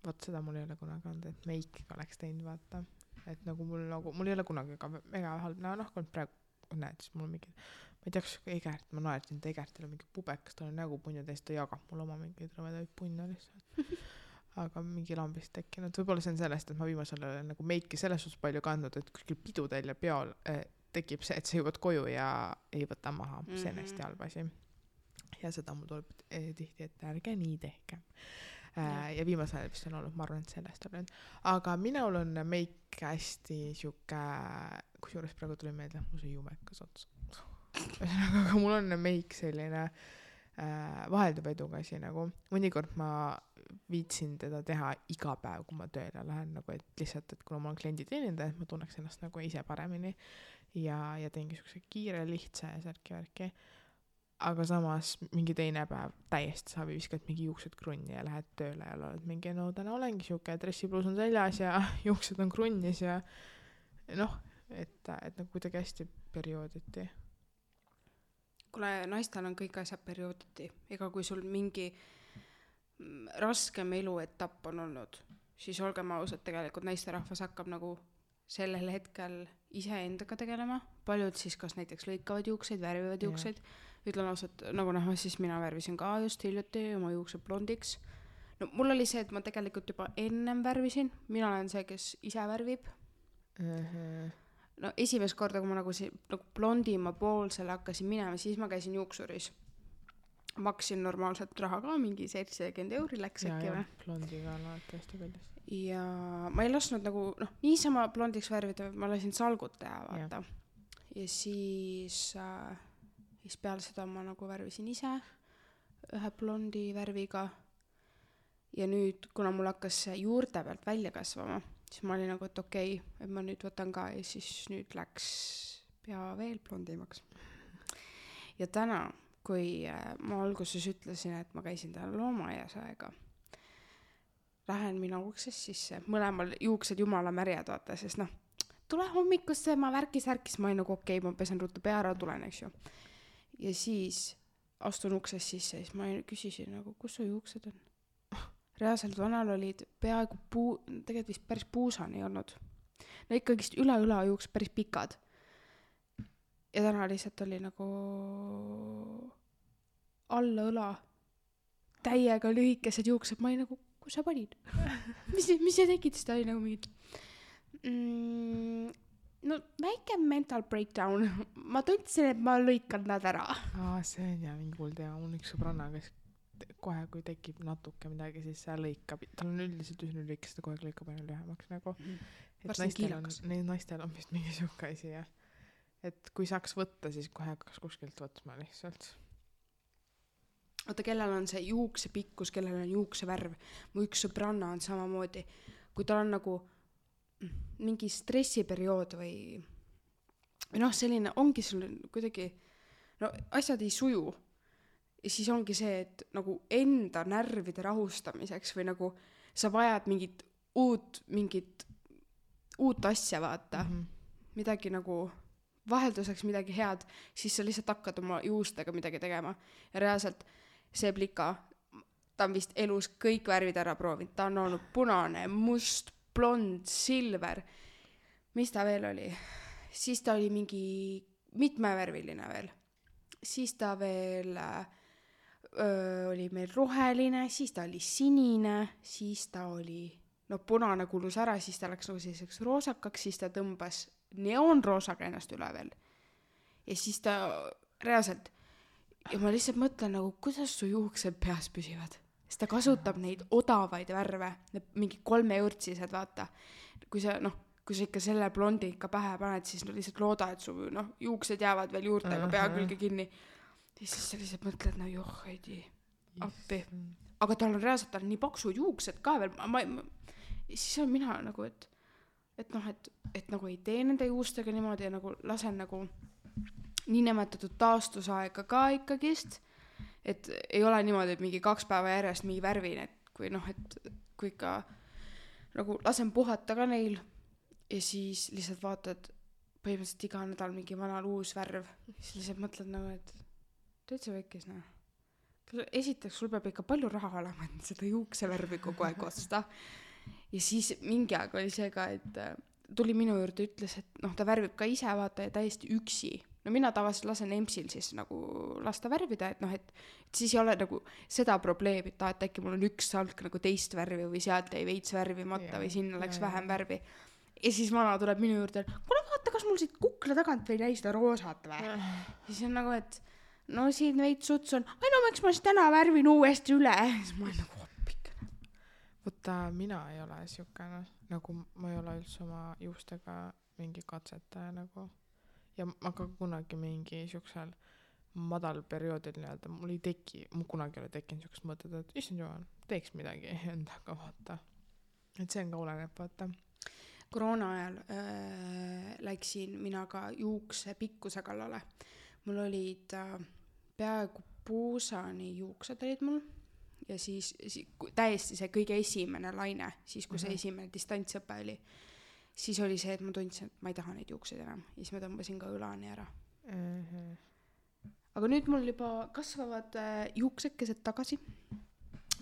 Vaat seda mul ei ole kunagi olnud, et meik oleks teinud, vaata. Et nagu mul ei ole kunagi ka mega halb kui praegu näed, siis mul on mingi, ma ei tea, kas Egert, ma naertin, et Egertil on mingi pubekas, tal on nägu punja täis, ta jagab mul oma mingeid rõvedaid punja lihtsalt. Aga mingi lambist tekkinud, võib-olla see on sellest, et ma viimasel olen nagu meiki selles suhtes palju kandnud, et kuskil pidudel ja peol tekib see, et sa jõuad koju ja ei võta maha, see on hästi halb asi. Ja seda mul tuleb tihti, et ärge nii tehke. Ja viimasel ajal vist on olnud, ma arvan, et sellest olen. Aga minul on meik hästi siuke, kusjuures praegu tuli meelde, mul see jumekas ots. Aga mul on meik selline vahelduv edukasi nagu. Mõnikord ma viitsin teda teha iga päev, kui ma tööle lähen, nagu, et lihtsalt, et kuna ma olen klienditeenindaja, et ma tunneks ennast nagu ise paremini ja teengi siukse kiire, lihtsa ja särki-värki. Aga samas mingi teine päev täiesti saab viskad mingi juuksed krunni ja lähed tööle ja oled mingi, täna olengi siuke, dressipluus on seljas ja juuksed on krunnis ja et nagu kuidagi hästi periooditi. Kuule, naistel on kõik asjad periooditi. Ega kui sul mingi raskem eluetapp on olnud, siis olgem ausad, tegelikult naisterahvas hakkab nagu sellel hetkel iseendaga tegelema. Paljud siis kas näiteks lõikavad juukseid, värvivad juukseid. Ütlen ausalt, nagu näha, siis mina värvisin ka just hiljuti oma juuksed blondiks. No mul oli see, et ma tegelikult juba ennem värvisin. Mina olen see, kes ise värvib. No esimest korda, kui ma nagu blondima poolsele hakkasin minema, siis ma käisin juuksuris. Maksin normaalselt raha ka, mingi 70 € läks äkki või? Blondiga alati hästi kallis. Ja ma ei lasknud nagu, niisama blondiks värvida, ma lasin salgut teha, vaata. Ja siis peale seda ma nagu värvisin ise ühe blondi värviga. Ja nüüd, kuna mul hakkas juurte pealt välja kasvama, siis ma olin nagu, et okei, et ma nüüd võtan ka ja siis nüüd läks pea veel blondimaks. Ja täna, kui ma alguses ütlesin, et ma käisin täna loomaaias aega, lähen mina uksest sisse, mõlemal juuksed jumala märjad, vaata, sest tule hommikusse, ma värkis, ma olin nagu okei, ma pesen ruttu pea ära, tulen, eks ju. Ja siis astun uksest sisse, siis ma küsisin nagu, kus su juuksed on? Reaalselt vanal olid peaaegu tegelikult vist päris puusani olnud. No ikkagist üle õla juuksed päris pikad. Ja täna lihtsalt oli nagu alla õla täiega lühikesed juuksed, ma olin nagu, kus sa panid? mis sa tegid? Siis ta oli nagu mingid no väike mental breakdown. Ma tundsin, et ma lõikan nad ära. See on ja mingi hull teema. Mul üks sõbranna, kes kohe, kui tekib natuke midagi, siis see lõikab. Tal on üldiselt üsna lühikest, ta kohe lõikab aina lühemaks nagu. Naistel on vist mingi siuke asi, jah. Et kui saaks võtta, siis kohe hakkas kuskilt võtma lihtsalt. Oota, kellel on see juukse pikkus, kellel on juukse värv. Mu üks sõbranna on samamoodi. Kui tal on nagu mingi stressiperiood või noh, selline ongi sul kuidagi no asjad ei suju ja siis ongi see, et nagu enda närvide rahustamiseks või nagu sa vajad mingit uut asja vaata midagi nagu vahelduseks midagi head, siis sa lihtsalt hakkad oma juustega midagi tegema ja reaalselt see plika ta on vist elus kõik värvid ära proovinud, ta on olnud punane, must, blond, silver, mis ta veel oli? Siis ta oli mingi mitmevärviline veel. Siis ta veel oli meil roheline, siis ta oli sinine, siis ta oli punane kulus ära, siis ta läks nagu selliseks roosakaks, siis ta tõmbas neoonroosaga ennast üle veel. Ja siis ta reaalselt, ja ma lihtsalt mõtlen nagu, kuidas su juuksed peas püsivad? Siis ta kasutab neid odavaid värve, mingi 3 eurtsised, vaata. Kui sa ikka selle blondi ikka pähe paned, siis lihtsalt looda, et su juuksed jäävad veel juurtega pea külge kinni. Ja siis sa lihtsalt mõtled, heidi, appi. Aga tal on reaalselt nii paksud juuksed ka veel. Siis on mina nagu, et nagu ei tee nende juustega niimoodi ja nagu lasen nagu niinimetatud taastusaega ka ikkagist. Et ei ole niimoodi, et mingi 2 päeva järjest mingi värvin, et kui kui ikka nagu lasen puhata ka neil ja siis lihtsalt vaatad põhimõtteliselt iga nädal mingi vanal uus värv, siis lihtsalt mõtled nagu, et täitsa väikes, esiteks sul peab ikka palju raha olema, et seda juuksevärvi kogu aeg osta ja siis mingi aeg oli see ka, et tuli minu juurde, ütles, et ta värvib ka ise, vaata, ja täiesti üksi. No mina tavaliselt lasen EMS-il siis nagu lasta värvida, et siis ei ole nagu seda probleemi, et äkki mul on üks salk nagu teist värvi või sealt jäi veits värvimata või sinna läks vähem värvi. Ja siis vana tuleb minu juurde, kuule vaata, kas mul siit kukla tagant või jäi seda roosat või? Siis on nagu, et siin veits suts on, miks ma siis täna värvin uuesti üle? Siis ma olen nagu hoppikene. Võtta, mina ei ole siukene, nagu ma ei ole üldse oma juustega mingi katsetaja nagu. Ja ma ka kunagi mingi siuksel madal perioodil nii-öelda, mul kunagi ei ole tekkinud siukest mõtet, et issand jumal, teeks midagi endaga, vaata. Et see on ka oleneb, vaata. Koroona ajal läksin mina ka juukse pikkuse kallale. Mul olid peaaegu puusani juuksed olid mul ja siis täiesti see kõige esimene laine, siis kui see esimene distantsõpe oli. Siis oli see, et ma tundsin, et ma ei taha neid juukseid enam. Ja siis ma tõmbasin ka õlani ära. Aga nüüd mul juba kasvavad juuksekesed tagasi.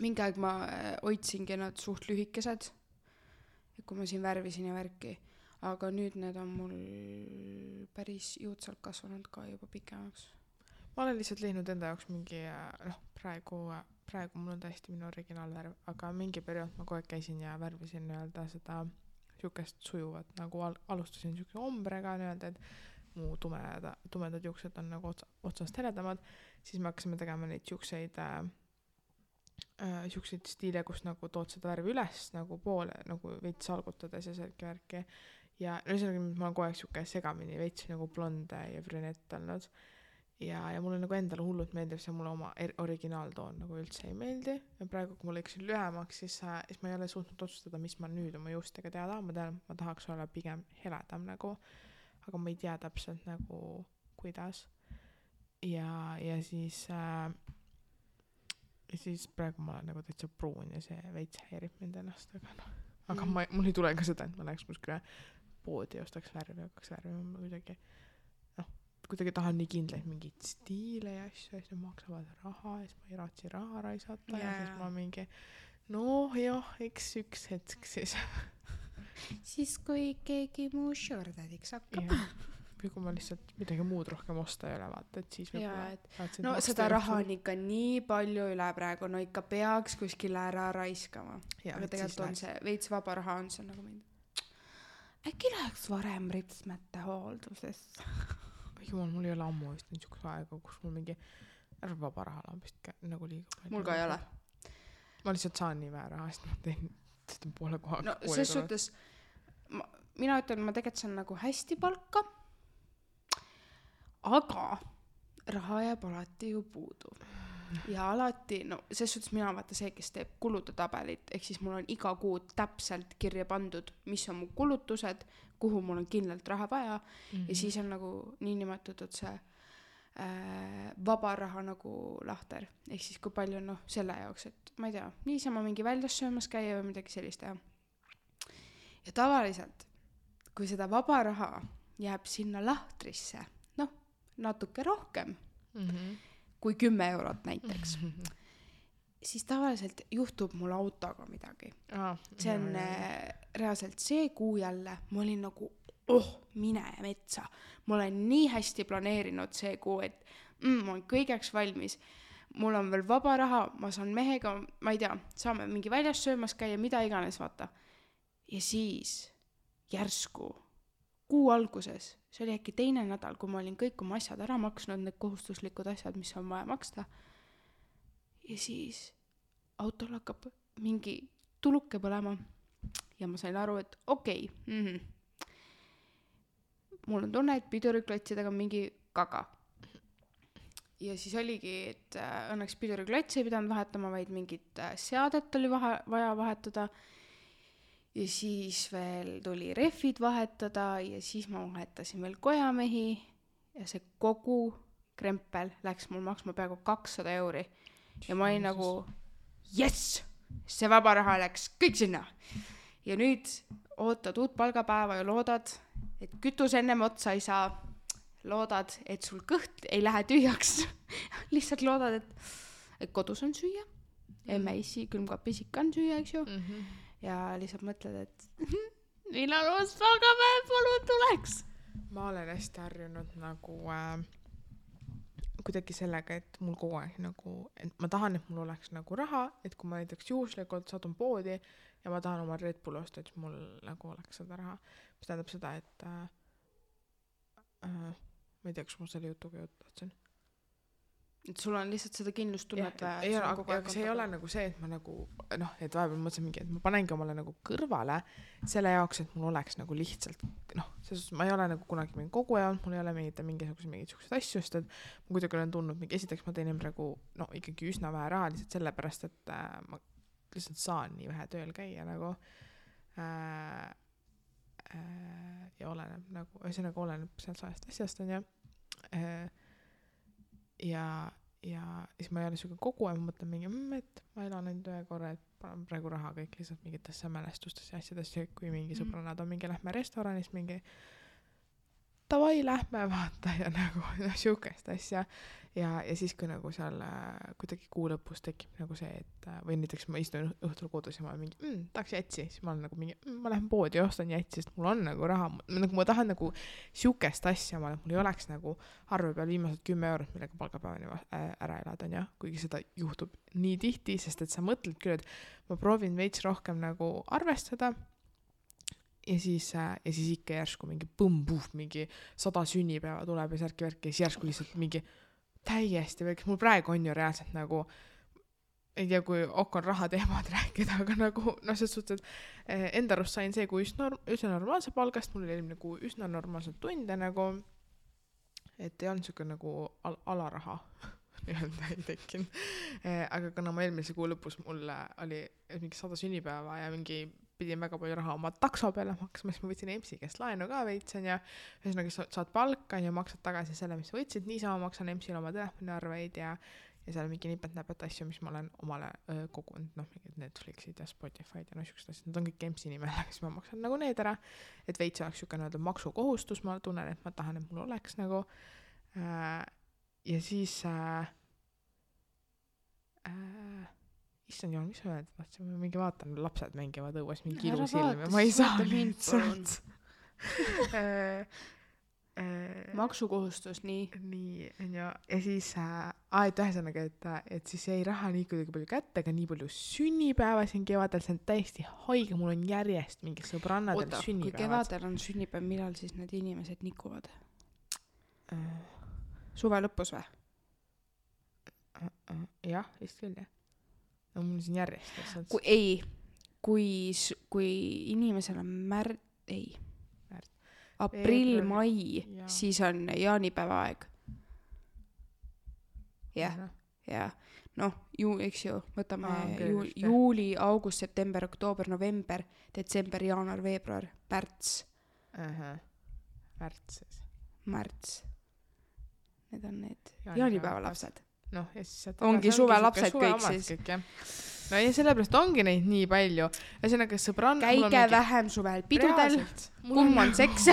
Mingi aeg ma hoidsingi nad suht lühikesed, kui ma siin värvisin ja värki. Aga nüüd need on mul päris juutsalt kasvanud ka juba pikemaks. Ma olen lihtsalt leidnud enda jaoks mingi, praegu mul on täiesti minu originaalvärv, aga mingi periood ma kogu aeg käisin ja värvisin nii-öelda seda siukest sujuvat, nagu alustasin siukse ombrega nii-öelda, et mu tumedad juuksed on nagu otsast heledamad, siis me hakkasime tegema neid siukseid stiile, kus nagu tood seda värvi üles nagu poole, nagu veits salgutades ja selge värki ja ühesõnaga ma olen kogu aeg siuke segamini veits nagu blonde ja brünett olnud ja mulle nagu endale hullult meeldib see mulle oma originaaltoon nagu üldse ei meeldi ja praegu kui ma lõiksin lühemaks, siis ma ei ole suutnud otsustada, mis ma nüüd oma juustega teada, ma tean, ma tahaks olla pigem heledam nagu, aga ma ei tea täpselt nagu kuidas ja siis praegu ma olen nagu täitsa pruun ja see veits häirib mind ennast, aga mul ei tule ka seda, et ma läheks kuskile poodi ja ostaks värvi, hakkaks värvima, ma kuidagi tahan nii kindlaid mingeid stiile ja asju, ja siis nad maksavad raha ja siis ma ei raatsi raha raisata ja siis ma mingi eks üks hetk siis siis kui keegi muu shordadiks hakkab. Või kui ma lihtsalt midagi muud rohkem osta ei ole, vaata, et siis võib-olla no seda raha on ikka nii palju üle praegu, no ikka peaks kuskile ära raiskama. Aga tegelikult on see veits vaba raha on see nagu äkki läheks varem ripsmete hooldusesse. Jumal, mul ei ole ammu vist niisuguse aega, kus mul mingi vaba raha lambist nagu liiga palju. Mul ka ei ole. Ma lihtsalt saan nii vähe raha, sest ma teen poole kohaga. No ses suhtes mina ütlen, ma tegelikult saan nagu hästi palka, aga raha jääb alati ju puudu. Ja alati, no ses suhtes mina vaata see, kes teeb kulude tabelit, ehk siis mul on iga kuu täpselt kirja pandud, mis on mu kulutused, kuhu mul on kindlalt raha vaja ja siis on nagu niinimetatud see vaba raha nagu lahter. Ehk siis kui palju on selle jaoks, et ma ei tea, niisama mingi väljas söömas käia või midagi sellist teha. Ja tavaliselt, kui seda vaba raha jääb sinna lahtrisse, natuke rohkem kui 10 eurot näiteks, siis tavaliselt juhtub mul autoga midagi. See on reaalselt see kuu jälle, ma olin nagu, mine metsa. Ma olen nii hästi planeerinud see kuu, et ma olen kõigeks valmis. Mul on veel vaba raha, ma saan mehega, ma ei tea, saame mingi väljas söömas käia, mida iganes, vaata. Ja siis järsku kuu alguses, see oli äkki teine nädal, kui ma olin kõik oma asjad ära maksnud, need kohustuslikud asjad, mis on vaja maksta. Ja siis autol hakkab mingi tuluke põlema ja ma sain aru, et okei. Mul on tunne, et piduriklotsidega on mingi kaga. Ja siis oligi, et õnneks piduriklotsi ei pidanud vahetama, vaid mingit seadet oli vaja vahetada. Ja siis veel tuli rehvid vahetada ja siis ma vahetasin veel kojamehi ja see kogu krempel läks mul maksma peaaegu 200 €. Ja ma olin nagu, yes, see vaba raha läks kõik sinna. Ja nüüd ootad uut palgapäeva ja loodad, et kütus ennem otsa ei saa. Loodad, et sul kõht ei lähe tühjaks. Lihtsalt loodad, et kodus on süüa. Emme-issi külmkapis ikka on süüa, eks ju. Ja lihtsalt mõtled, et millal uus palgapäev palun tuleks. Ma olen hästi harjunud nagu kuidagi sellega, et mul kogu aeg nagu, et ma tahan, et mul oleks nagu raha, et kui ma näiteks juhuslikult satun poodi ja ma tahan oma Red Bull osta, et mul nagu oleks seda raha. Mis tähendab seda, et ma ei tea, kas mul selle jutuga juttu. Et sul on lihtsalt seda kindlustunnet vaja. Aga see ei ole nagu see, et ma nagu, et vahepeal mõtlesin mingi, et ma panengi omale nagu kõrvale selle jaoks, et mul oleks nagu lihtsalt, ma ei ole nagu kunagi mingi koguja olnud, mul ei ole mingisugused asju, sest et ma kuidagi olen tundnud mingi, esiteks ma teenin praegu ikkagi üsna vähe raha lihtsalt sellepärast, et ma lihtsalt saan nii vähe tööl käia nagu ja oleneb nagu, ühesõnaga oleneb sealt sajast asjast on ja siis ma ei ole selline kogu aeg, ma mõtlen mingi, et ma elan ainult ühe korra, et panen praegu raha kõik lihtsalt mingitesse mälestustes ja asjadesse, kui mingi sõbrannad on mingi, lähme restoranis mingi davai, lähme vaata ja nagu siukest asja ja siis kui nagu seal kuidagi kuu lõpus tekib nagu see, et või näiteks ma istun õhtul kodus ja ma olen mingi, tahaks jätsi, siis ma olen nagu mingi, ma lähen poodi ja ostan jätsi, sest mul on nagu raha, nagu ma tahan nagu siukest asja, mul ei oleks nagu arve peal viimased 10 €, millega palgapäevani ära elada, on ja, kuigi seda juhtub nii tihti, sest et sa mõtled küll, et ma proovin veits rohkem nagu arvestada ja siis ikka järsku mingi põmbuuf, mingi 100 sünnipäeva tuleb ja särki-värki ja siis järsku lihtsalt mingi täiesti väikest, mul praegu on ju reaalselt nagu, ei tea, kui on raha teemad rääkida, aga nagu, selles suhtes, et enda arust sain see, kui üsna normaalse palgast, mul oli nagu üsna normaalselt tunde nagu, et ei olnud siuke nagu alaraha nii-öelda ei tekkinud. Aga kuna ma eelmise kuu lõpus mul oli mingi 100 sünnipäeva ja mingi pidin väga palju raha oma takso peale maksma, siis ma võtsin EMS-i käest laenu ka veitsen ja ühesõnaga saad palka ja maksad tagasi selle, mis võtsid, niisama maksan EMS-ile oma telefoniarveid ja ja seal mingi nipet-näpet asju, mis ma olen omale kogunud, noh, mingid Netflixid ja Spotify'd ja no siuksed asjad, need on kõik EMS-i nimel, siis ma maksan nagu need ära, et veits oleks siuke nii-öelda maksukohustus, ma tunnen, et ma tahan, et mul oleks nagu ja siis issand jumal, mis ma öelda, ma mingi vaatan, lapsed mängivad õues mingi ilus ilm ja ma ei saa lihtsalt maksukohustus, nii on ju, ja siis et ühesõnaga, et siis jäi raha nii kuidagi palju kätte, aga nii palju sünnipäeva siin kevadel, see on täiesti haige, mul on järjest mingi sõbrannadel sünnipäevad. Kui kevadel on sünnipäev, millal siis need inimesed nikuvad? Suve lõpus või? Jah, vist küll jah. No mul siin järjest. Kui inimesel on aprill, mai, siis on jaanipäeva aeg. Jah. Noh, eks ju, võtame juuli, august, september, oktoober, november, detsember, jaanuar, veebruar, märts. Märts. Need on need jaanipäeva lapsed. No, ja siis ongi suve lapsed kõik siis. No ja sellepärast ongi neid nii palju. Ühesõnaga sõbrann... Käige vähem suvel pidudel, kumm on seks.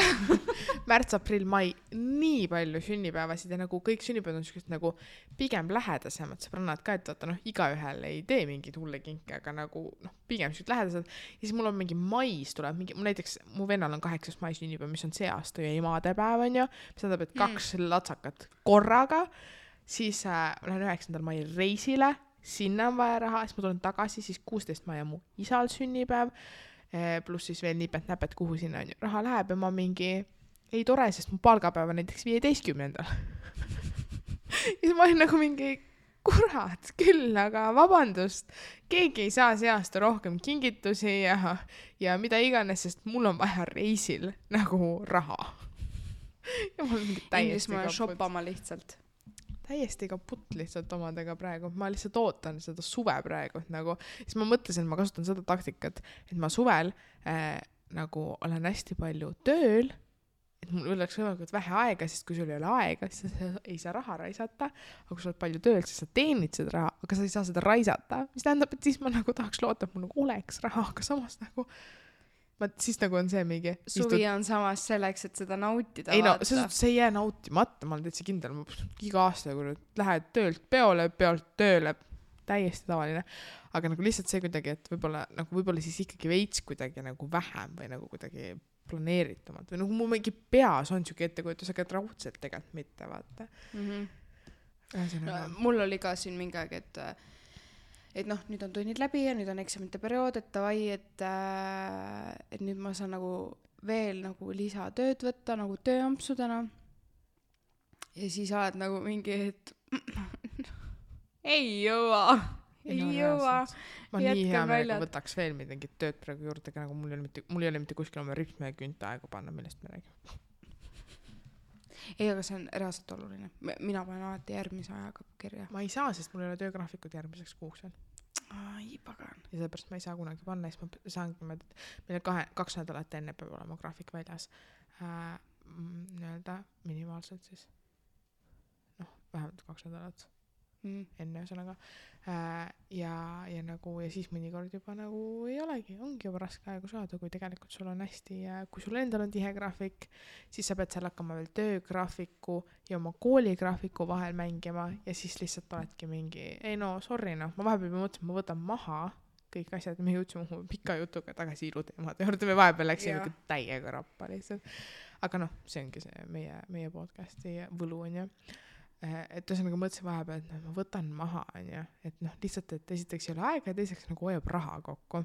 Märts, aprill, mai, nii palju sünnipäevasid ja nagu kõik sünnipäevad on sellised nagu pigem lähedasemad sõbrannad ka, et vaata igaühel ei tee mingid hulle kinke, aga nagu pigem sellised lähedased. Ja siis mul on mingi mais tuleb, näiteks mu vennal on 8. mai sünnipäev, mis on see aasta ju emadepäev on ju, mis tähendab, et 2 latsakat korraga, siis lähen 9. mai reisile, sinna on vaja raha, siis ma tulen tagasi, siis 16. mai on mu isal sünnipäev, pluss siis veel nipet-näpet, kuhu sinna on ju raha läheb ja ma mingi, ei tore, sest mu palgapäev on näiteks 15. Ja siis ma olin nagu mingi, kurat küll, aga vabandust, keegi ei saa see aasta rohkem kingitusi ja mida iganes, sest mul on vaja reisil nagu raha. Ja mul on mingi täiesti kaput. Shoppama lihtsalt. Täiesti kaputt lihtsalt omadega praegu. Ma lihtsalt ootan seda suve praegu. Nagu, siis ma mõtlesin, et ma kasutan seda taktikat, et ma suvel nagu olen hästi palju tööl, et mul oleks võimalikult vähe aega, sest kui sul ei ole aega, siis sa ei saa raha raisata, aga kui sa oled palju tööl, siis sa teenid seda raha, aga sa ei saa seda raisata, mis tähendab, et siis ma nagu tahaks loota, et mul nagu oleks raha, aga samas nagu siis nagu on see mingi suvi on samas selleks, et seda nautida. Ei no, see ei jää nautimata, ma olen täitsa kindel, ma iga aasta kui lähed töölt peole, peolt tööle, täiesti tavaline, aga nagu lihtsalt see kuidagi, et võib-olla siis ikkagi veits kuidagi nagu vähem või nagu kuidagi planeeritumalt või nagu mu mingi peas on siuke ettekujutus, aga raudselt tegelikult mitte, vaata. Mul oli ka siin mingi aeg, et noh, nüüd on tunnid läbi ja nüüd on eksamite periood, et davai, et nüüd ma saan nagu veel nagu lisatööd võtta nagu tööampsudena. Ja siis oled nagu mingi, et ei jõua. Ma nii hea meelega võtaks veel midagi tööd praegu juurde, aga nagu mul ei ole mitte kuskil oma rütme ja künta aegu panna, millest me räägime. Ei, aga see on reaalselt oluline. Mina panen alati järgmise ajaga kirja. Ma ei saa, sest mul ei ole töögraafikud järgmiseks kuuks veel. Ai, pagan. Ja sellepärast ma ei saa kunagi panna, siis ma saangi, meil 2 nädalat enne peab olema graafik väljas. Nii-öelda minimaalselt siis. Vähemalt 2 nädalat. Enne ühesõnaga. Ja nagu, ja siis mõnikord juba nagu ei olegi, ongi juba raske aegu saada, kui tegelikult sul on hästi, kui sul endal on tihe graafik, siis sa pead seal hakkama veel töögraafiku ja oma kooligraafiku vahel mängima ja siis lihtsalt oledki mingi, ei no, sorry, ma vahepeal mõtlesin, ma võtan maha kõik asjad, me jõudsime mu pika jutuga tagasi iluteemade juurde, me vahepeal läksime täiega rappa lihtsalt. Aga noh, see ongi see meie podcasti võlu on ju. Et ühesõnaga mõtlesin vahepeal, et ma võtan maha, et noh, lihtsalt, et esiteks ei ole aega ja teiseks nagu hoiab raha kokku.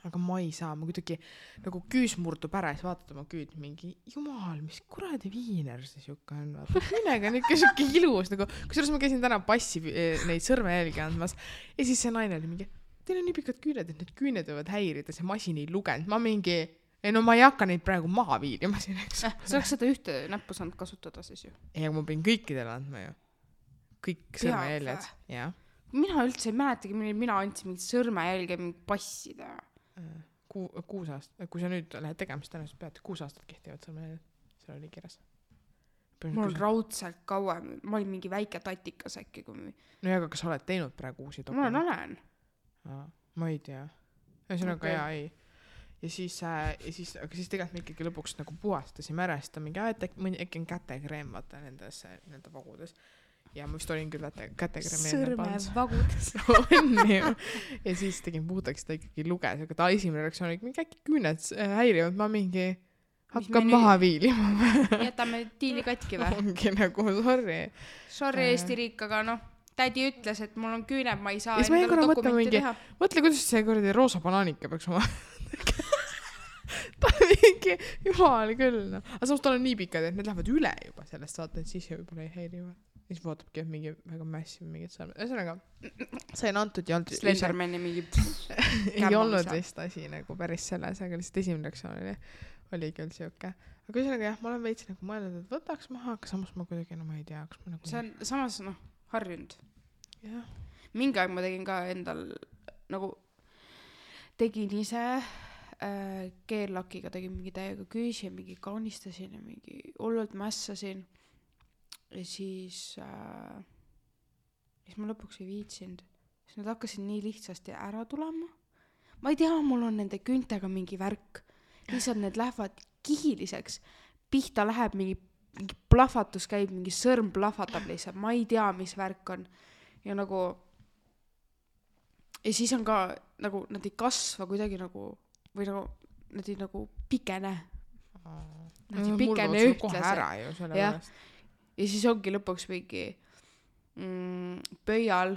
Aga ma ei saa, ma kuidagi nagu küüs murdub ära ja siis vaatad oma küüd mingi, jumal, mis kuradi viiner see siuke on, vaata, küünega on ikka siuke ilus, nagu, kusjuures ma käisin täna passi neid sõrmejälgi andmas ja siis see naine oli mingi, teil on nii pikad küüned, et need küüned võivad häirida, see masin ei lugenud, ma mingi ei no ma ei hakka neid praegu maha viilima siin, eks. Sa oleks seda ühte näppu saanud kasutada siis ju. Ei, aga ma pein kõikidele andma ju. Kõik sõrmejäljed. Mina üldse ei mäletagi, mina andsin mingid sõrmejälge mingi passida. 6 aastat, kui sa nüüd lähed tegema, siis tõenäoliselt pead 6 aastat kehtivad sõrmejäljed. Seal oli kirjas. mul on raudselt kauem, ma olin mingi väike tatikas äkki, kui no ja, aga kas sa oled teinud praegu uusi ma dokumente? olen. Ma ei tea. Ühesõnaga jaa, ei. Ja siis tegelikult me ikkagi lõpuks nagu puhastasime ära, siis ta mingi, et äkki on kätekreem, vaata nendes vagudes. Ja ma vist olin küll kätekreemi sõrmevagudes. on ju. Ja siis tegin puhtaks, ta ikkagi luges, aga ta esimene reaktsioon oli mingi äkki küüned häirivad, ma mingi hakkab maha viilima. Jätame diili katki või? Ongi nagu, sorry Eesti riik, aga noh, tädi ütles, et mul on küüned, ma ei saa endale dokumenti mingi, teha. Mõtle, kuidas see kuradi roosa banaanika peaks oma ta mingi, jumal küll, no. Aga samas tal on nii pikad, et need lähevad üle juba sellest, vaata, et siis võib-olla ei häiriva. Siis vaatabki, et mingi väga massive mingid sõrmed. Ühesõnaga, sain antud ja Slendermani mingi ei olnud vist asi nagu päris selles, aga lihtsalt esimene reaktsioon oli küll siuke. Aga ühesõnaga jah, ma olen veits nagu mõelnud, et võtaks maha, aga samas ma kuidagi, no ma ei tea, kas ma nagu... See on samas, noh, harjunud. Jah. Mingi aeg ma tegin ka endal, nagu tegin ise keellakiga, tegin mingi täiega küüsi ja mingi kaunistasin ja mingi hullult mässasin. Ja siis ma lõpuks ei viitsinud. Siis nad hakkasid nii lihtsasti ära tulema. Ma ei tea, mul on nende küntega mingi värk. Lihtsalt need lähevad kihiliseks. Pihta läheb mingi plahvatus käib, mingi sõrm plahvatab lihtsalt. Ma ei tea, mis värk on. Ja nagu... Ja siis on ka, nagu, nad ei kasva kuidagi nagu... Või nagu, nad ei nagu pikene. Nad ei pikene ühtlaselt. Ja siis ongi lõpuks mingi pöial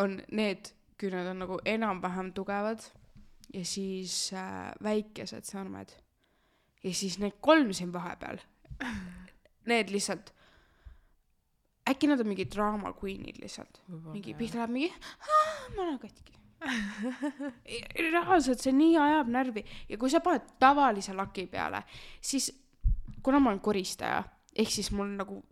on need küüned on nagu enam-vähem tugevad ja siis väikesed sõrmed. Ja siis need 3 siin vahepeal. Need lihtsalt äkki nad on mingi drama queenid lihtsalt. Mingi pihta läheb mingi ma olen katki. Reaalselt see nii ajab närvi ja kui sa paned tavalise laki peale, siis kuna ma olen koristaja, ehk siis mul nagu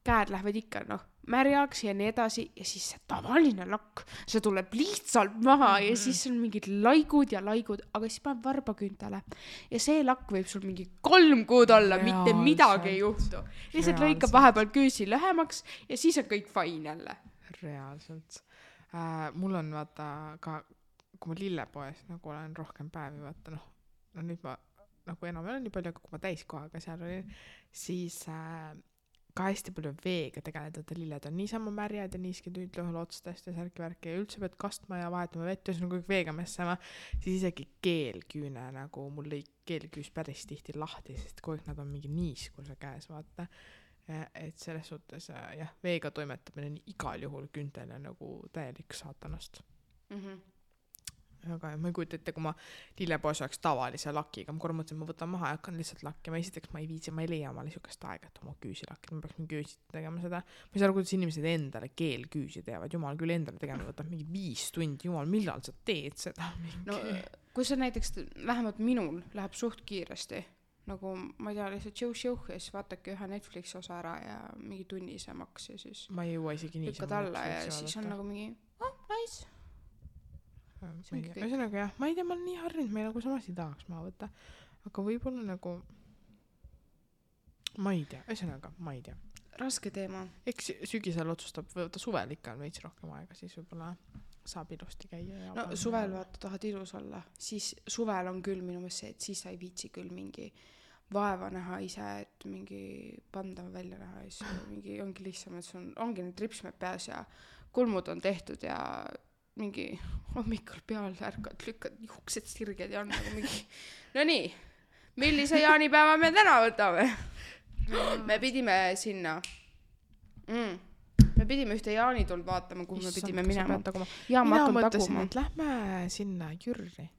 käed lähevad ikka märjaks ja nii edasi ja siis see tavaline lakk, see tuleb lihtsalt maha ja siis on mingid laigud ja laigud, aga siis paneb varbaküntele ja see lakk võib sul mingi 3 kuud olla, mitte midagi ei juhtu. Lihtsalt lõikab vahepeal küüsi lühemaks ja siis on kõik fine jälle. Reaalselt. Mul on vaata ka, kui ma lillepoes nagu olen rohkem päevi, vaata nüüd ma nagu enam ei ole nii palju, aga kui ma täiskohaga seal olin, siis ka hästi palju veega tegeleda, et lilled on niisama märjad ja niiski tüüdlõhul otstest ja särki-värki ja üldse pead kastma ja vahetama vett ja nagu veega messama, siis isegi keelküüne nagu mul lõi keelküüs päris tihti lahti, sest kogu aeg nad on mingi niiskuse käes, vaata. Et selles suhtes jah, veega toimetamine on igal juhul küntele nagu täielik saatanast. Aga ma ei kujuta ette, kui ma lillepoes oleks tavalise lakiga, ma korra mõtlesin, ma võtan maha ja hakkan lihtsalt lakkima. Esiteks ma ei viitsi, ma ei leia omale niisugust aega, et oma küüsi lakkida, ma peaks mingi küüsi tegema seda. Ma ei saa aru, kuidas inimesed endale keelküüsi teevad, jumal küll endale tegema, võtab mingi 5 tundi, jumal, millal sa teed seda? No kui see näiteks, vähemalt minul läheb suht kiiresti, nagu ma ei tea, lihtsalt jõu ja siis vaatake ühe Netflixi osa ära ja mingi tunnise maks ja siis ma ei jõua isegi nii lükkad alla ja siis on nagu mingi nice. Ühesõnaga jah, ma ei tea, ma olen nii harjunud, ma nagu samas ei tahaks maha võtta, aga võib-olla nagu ma ei tea, ühesõnaga ma ei tea. Raske teema. Eks sügisel otsustab, võtta suvel ikka on veits rohkem aega, siis võib-olla saab ilusti käia. Ja no suvel vaata tahad ilus olla, siis suvel on küll minu meelest see, et siis sa ei viitsi küll mingi vaeva näha ise, et mingi pandav välja näha ja siis mingi ongi lihtsam, et sul ongi need ripsmed peas ja kulmud on tehtud ja mingi hommikul peal ärkad, lükkad juuksed sirged ja on nagu mingi no nii, millise jaanipäeva me täna võtame? Me pidime sinna me pidime ühte jaanituld vaatama, kuhu me pidime minema. Mina mõtlesin, et lähme sinna Jürri.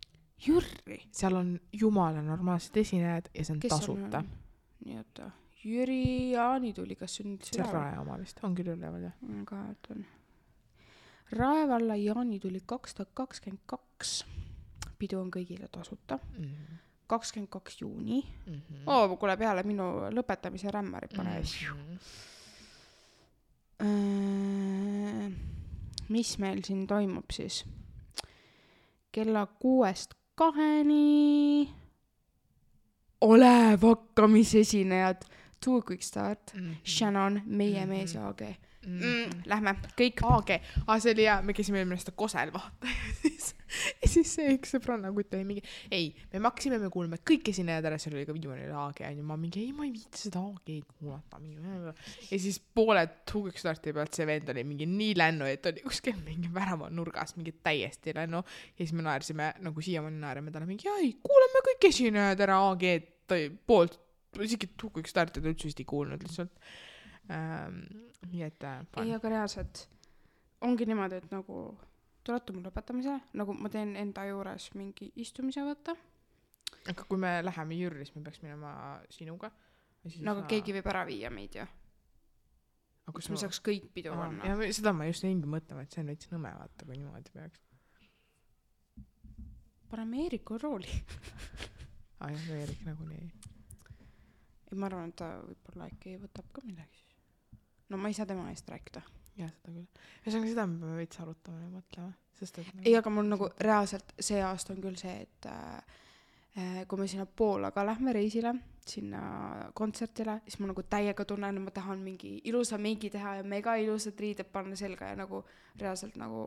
Seal on jumala normaalsed esinejad ja see on tasuta. Nii oota, Jüri jaanituli, kas see on nüüd see Rae oma vist, on küll üleval jah? Ka on. Raevalla jaanituli 2022. Pidu on kõigile tasuta. 22 juuni. Kuule peale minu lõpetamise rämmari pane. Mis meil siin toimub siis? Kella 6-2 Olev hakkamisesinejad Too Quick Start, Shannon, meie mees ja AG. Lähme, kõik. AG, see oli hea, me käisime eelmine aasta Kosel vaata ja siis see üks sõbranna kutt oli mingi, ei, me maksime, me kuuleme kõik esinejad ära, seal oli ka viimane AG ja ma mingi, ei, ma ei viiti seda AG-d kuulata ja siis poole Too Quick Starti pealt see vend oli mingi nii lännu, et oli kuskil mingi värava nurgas mingi täiesti lännu ja siis me naersime, nagu siiamaani naerame talle mingi, ei, kuuleme kõik esinejad ära AG-d poolt, isegi Too Quick Starti ta üldse vist ei kuulnud lihtsalt. Nii et ei, aga reaalselt ongi niimoodi, et nagu tulete mul lõpetamise, nagu ma teen enda juures mingi istumise võtta. Aga kui me läheme Jüri, siis me peaks minema sinuga. Nagu keegi võib ära viia meid ju. Kus me saaks kõik pidu panna. Ja seda ma just näingi mõtlema, et see on veits nõme vaata, kui niimoodi peaks. Paneme Eeriku rooli. Jah, Eerik nagu nii. Ei, ma arvan, et ta võib-olla äkki võtab ka midagi. No ma ei saa tema eest rääkida. Jah, seda küll. Ühesõnaga seda me peame veits arutama ja mõtlema. Sest, et ei, aga mul nagu reaalselt see aasta on küll see, et kui me sinna Poolaga lähme reisile, sinna kontsertile, siis ma nagu täiega tunnen, et ma tahan mingi ilusa meigi teha ja mega ilusad riided panna selga ja nagu reaalselt nagu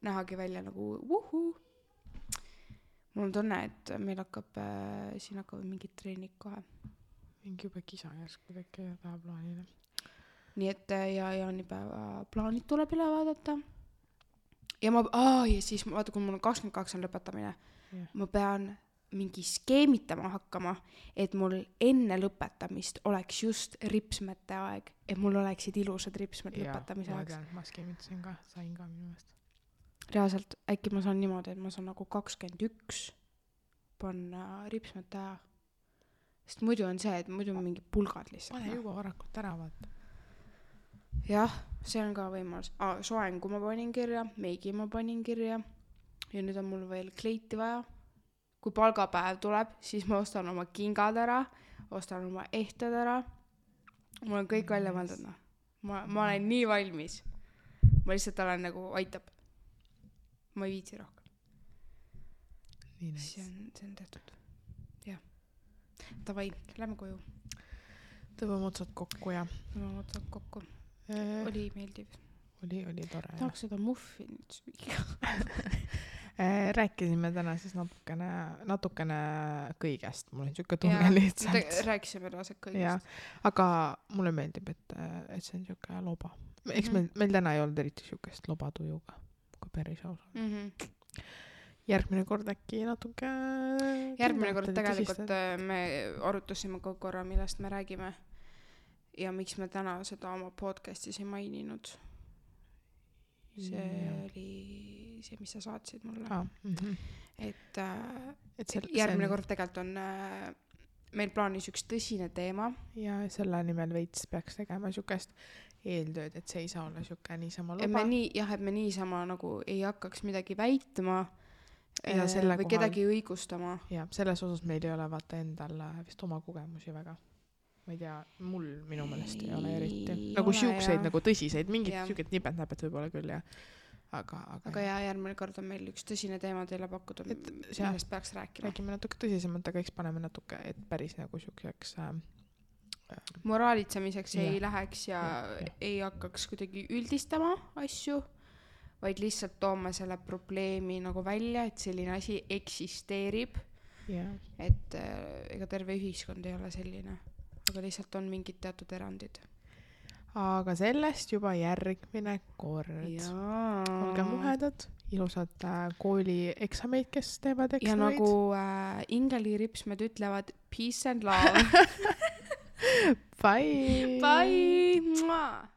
nähagi välja nagu vuhu. Mul on tunne, et meil siin hakkavad mingid treenid kohe. Mingi juba kisa järsku teki ja taha plaanile. Nii et ja jaanipäeva plaanid tuleb üle vaadata. Ja siis vaata, kui mul on 22 on lõpetamine, ma pean mingi skeemitama hakkama, et mul enne lõpetamist oleks just ripsmete aeg, et mul oleksid ilusad ripsmed lõpetamise aeg. Ja, ma skeemitasin ka, sain ka minu eest. Reaalselt, äkki ma saan niimoodi, et ma saan nagu 21 panna ripsmete aja. Sest muidu on see, et muidu on mingi pulgad lihtsalt. Pane juba varakult ära, vaata. Jah, see on ka võimalus. Soengu ma panin kirja, meigi ma panin kirja ja nüüd on mul veel kleiti vaja. Kui palgapäev tuleb, siis ma ostan oma kingad ära, ostan oma ehted ära. Mul on kõik välja mõeldud. Ma olen nii valmis. Ma lihtsalt olen nagu aitab. Ma ei viitsi rohkem. Nii näis. See on tehtud. Jah. Tavai, lähme koju. Tõmbame otsad kokku ja. Tõmbame otsad kokku. Oli meeldiv. Oli tore. Tahaks seda muffinit süüa. Rääkisime täna siis natukene kõigest. Mul on siuke tunne lihtsalt. Rääkisime reaalselt kõigest. Ja, aga mulle meeldib, et see on siuke loba. Eks meil täna ei olnud eriti siukest lobatujuga, kui päris aus on. Järgmine kord äkki natuke... Järgmine kord tegelikult me arutasime ka korra, millest me räägime. Ja miks me täna seda oma podcastis ei maininud. See oli see, mis sa saatsid mulle. Et järgmine kord tegelikult on meil plaanis üks tõsine teema. Ja selle nimel veits peaks tegema siukest eeltööd, et see ei saa olla siuke niisama loba. Et me niisama nagu ei hakkaks midagi väitma või kedagi õigustama. Ja selles osas meil ei ole vaata endal vist oma kogemusi väga. Ma ei tea, minu meelest ei ole eriti. Nagu siukseid nagu tõsiseid, mingid siuked nipet-näpet võib-olla küll. Aga järgmine kord on meil üks tõsine teema teile pakkuda, millest peaks rääkima. Räägime natuke tõsisemalt, aga eks paneme natuke, et päris nagu siukseks moraalitsemiseks ei läheks ja ei hakkaks kuidagi üldistama asju, vaid lihtsalt toome selle probleemi nagu välja, et selline asi eksisteerib. Et ega terve ühiskond ei ole selline, aga lihtsalt on mingid teatud erandid. Aga sellest juba järgmine kord. Olge muhedad, ilusad kooli eksameid, kes teevad eksameid. Ja nagu Ingeli ripsmed ütlevad, peace and love. Bye! Bye!